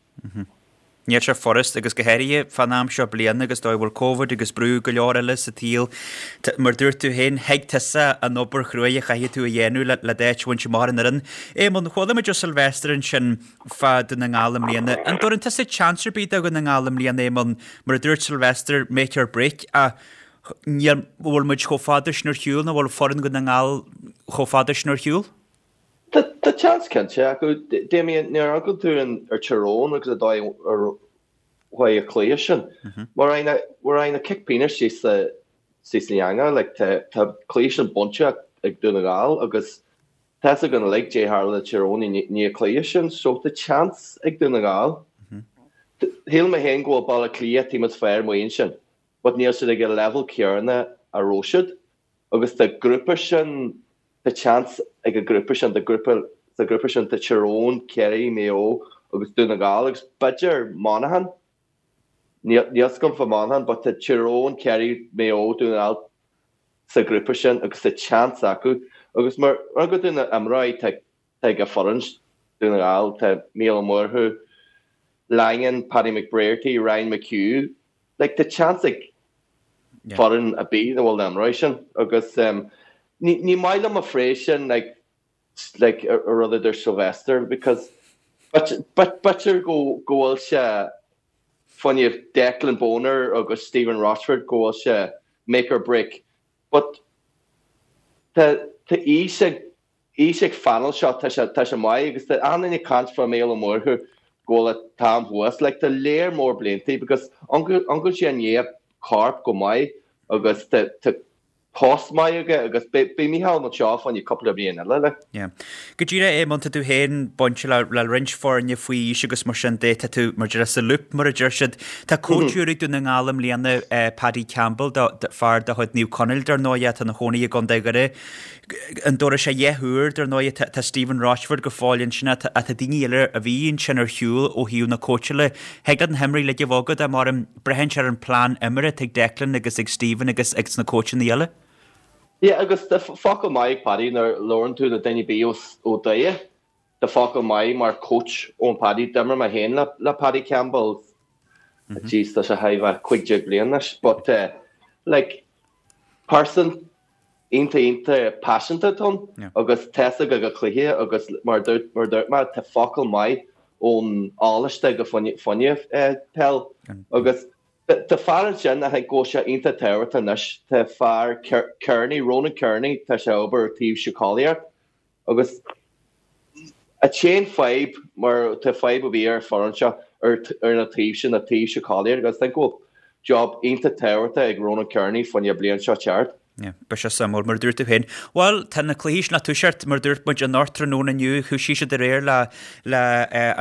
Níl sé furast, agus go háirithe fán am seo bliana agus dóigh a bhfuil Covid agus brú go leor eile sa tsaol. Mar dúirt tú féin, thuig tusa an obair chruaidh a chaithfidh tú a dhéanamh le d'áit a bhaint amach ar an fhoireann. Éamonn, chuala muid ó Sylvester ansin fá Dún na nGall i mbliana. An dtabharann tusa chance ar bith do Dhún na nGall i mbliana, Éamonn? Mar a dúirt Sylvester, make or break, ach níl, bhfuil muid chomh fada sin ar shiúl nó bhfuil foireann Dhún na nGall chomh fada sin ar shiúl? Tá seans cinnte acu. Damien, nuair a amharcann tú ar Tyrone agus an dóigh ar chuaigh an cluiche sin, mar aghaidh na cic pionóis síos sa eangach, like, tá cluiche sin bainte ag Dún na nGall agus tá fhios againn uilig caidé tharla le Tyrone i ndiaidh an cluiche sin, so tá seans ag Dún na nGall. Shíl mé féin go bhfuil Baile Átha Cliath team is fearr amuigh ansin, but níl siad ag an level céanna a raibh siad agus tá grúpa sin Tá seans ag an grúpa sin, tá grúpa, sa ghrúpa sin tá Tyrone, Kerry, Maigh Eo agus Dún na nGall agus b'fhéidir Monaghan, níl fhios agam fá Monaghan but tá Tyrone, Kerry, Maigh Eo, Dún na nGall sa ghrúpa sin agus tá seans acu agus mar rud de na imreoirí tá tá ag an foireann Dún na nGall, tá Mícheál Ó Murchú, Langan, Paddy McBrearty, Ryan McHugh, like tá seans ag foireann ar bith a bhfuil na himreoirí sin agus ní maith liom an phrase sin like like a rud a dúirt Sylvester because b'fhéidir go go bhfuil sé fá choinne Declan Bonner agus Stephen Rochford go bhfuil sé make or break but tá tá aois ag aois ag phainéal seo, tá sé, tá sé maith agus tá achan duine ag caint fá Mícheál Ó Murchú go bhfuil an t-am thuas, like tá léar mór bliantaí because amharcann sé i ndiaidh corp go maith agus tá, tá post maith aige agus beidh, beidh Mícheál anseo fá choinne cúpla bliain eile, like. Yeah. Go díreach, Éamonn, tá tú féin bainte le, le roinnt foirne faoi aois agus mar sin de, tá tú mar deir sa loop mar a deir siad. Tá coach úr ag Dún na nGall i mbliana, Paddy Campbell, do, do, fear de chuid Naomh Conaill dar ndóigh, atá ina chónaí i gContae Dhoire. An dtabharfaidh sé a dhath úr, dar ndóigh, tá Stephen Rochford go fóill ansin ach tá daoine eile a bhí ansin ar shiúl ó thaobh na cóitseála. Thig leat na himreoirí uilig a bheith agat ach mar braitheann sé ar an plean imeartha atá ag Declan agus ag Stephen agus ag na cóitseanna eile. Yeah agus tá focal maith ag Paddy nuair a labhrann tú le duine ar bith ó Doire. Tá focal maith mar coach ón Paddy. D'imir mé féin le Paddy Campbell. Jeez, tá sé thar a bheith 15 bliain anois but like person iontach iontach paiseanta atá ann agus tá fhios aige a chluiche agus mar a dúirt mar a dúirt mé tá focal maith ón eolas aige fá choinne peil agus tá fear ansin I think go bhfuil sé iontach tábhachtach anois tá fear Kearney Ronan Kearney tá sé ag obair ar taobh síceolaíocht Agus an t-aon fadhb, mar tá fadhb a bhí ar an foireann seo ar ar na taobh sin, na taobh síceolaíocht agus I think go bhfuil job iontach tábhachtach ag Ronan Kearney fá choinne bliain seo teacht. Yeah, beidh sé suimiúil, mar a dúirt tú féin. Bhuel, tá na cluichí sin le toiseacht, mar a dúirt muid, anocht tráthnóna inniu, thoisigh siad aréir le le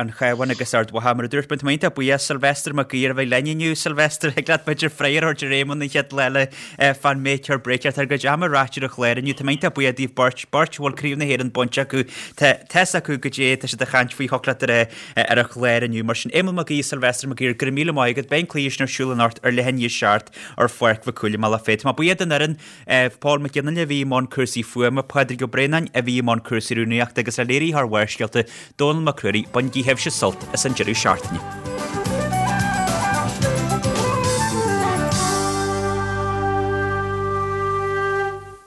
an Chabhán agus Ard Mhacha. Mar a dúirt muid, tá mé iontach buíoch Sylvester Mac Uidhir a bheith linn inniu. Sylvester, thig leat b'fhéidir freagra a thabhairt ar Éamonn an chéad lá eile fán make or break. Tá ár gcuid ama ráite ar an chlár inniu. Tá mé iontach buíoch daoibh beirt, beirt a bhfuil Craobh na hÉireann bainte acu. Tá fhios acu goidé tá siad ag caint faoi thiocfadh leat a rá ar an chlár inniu. Mar sin, Éamonn Mac Aoidh, Sylvester Mac Uidhir, go raibh míle maith agat. Beidh an cluiche sin ar siúl anocht ar leath i ndiaidh a 7 ar Pháirc Mhic Cumhaill i mBealach Féich. Tá mé buíoch den fhoireann. Paul Mac Fhionnaile a bhí i mbun cúrsaí fuaime, Pádraig Ó Braonáin a bhí i mbun cúrsaí rúnaíochta agus le léiritheoir Bharrscéalta, Dónall Mac Ruairí, bainigí sibhse sult as an deireadh seachtaine.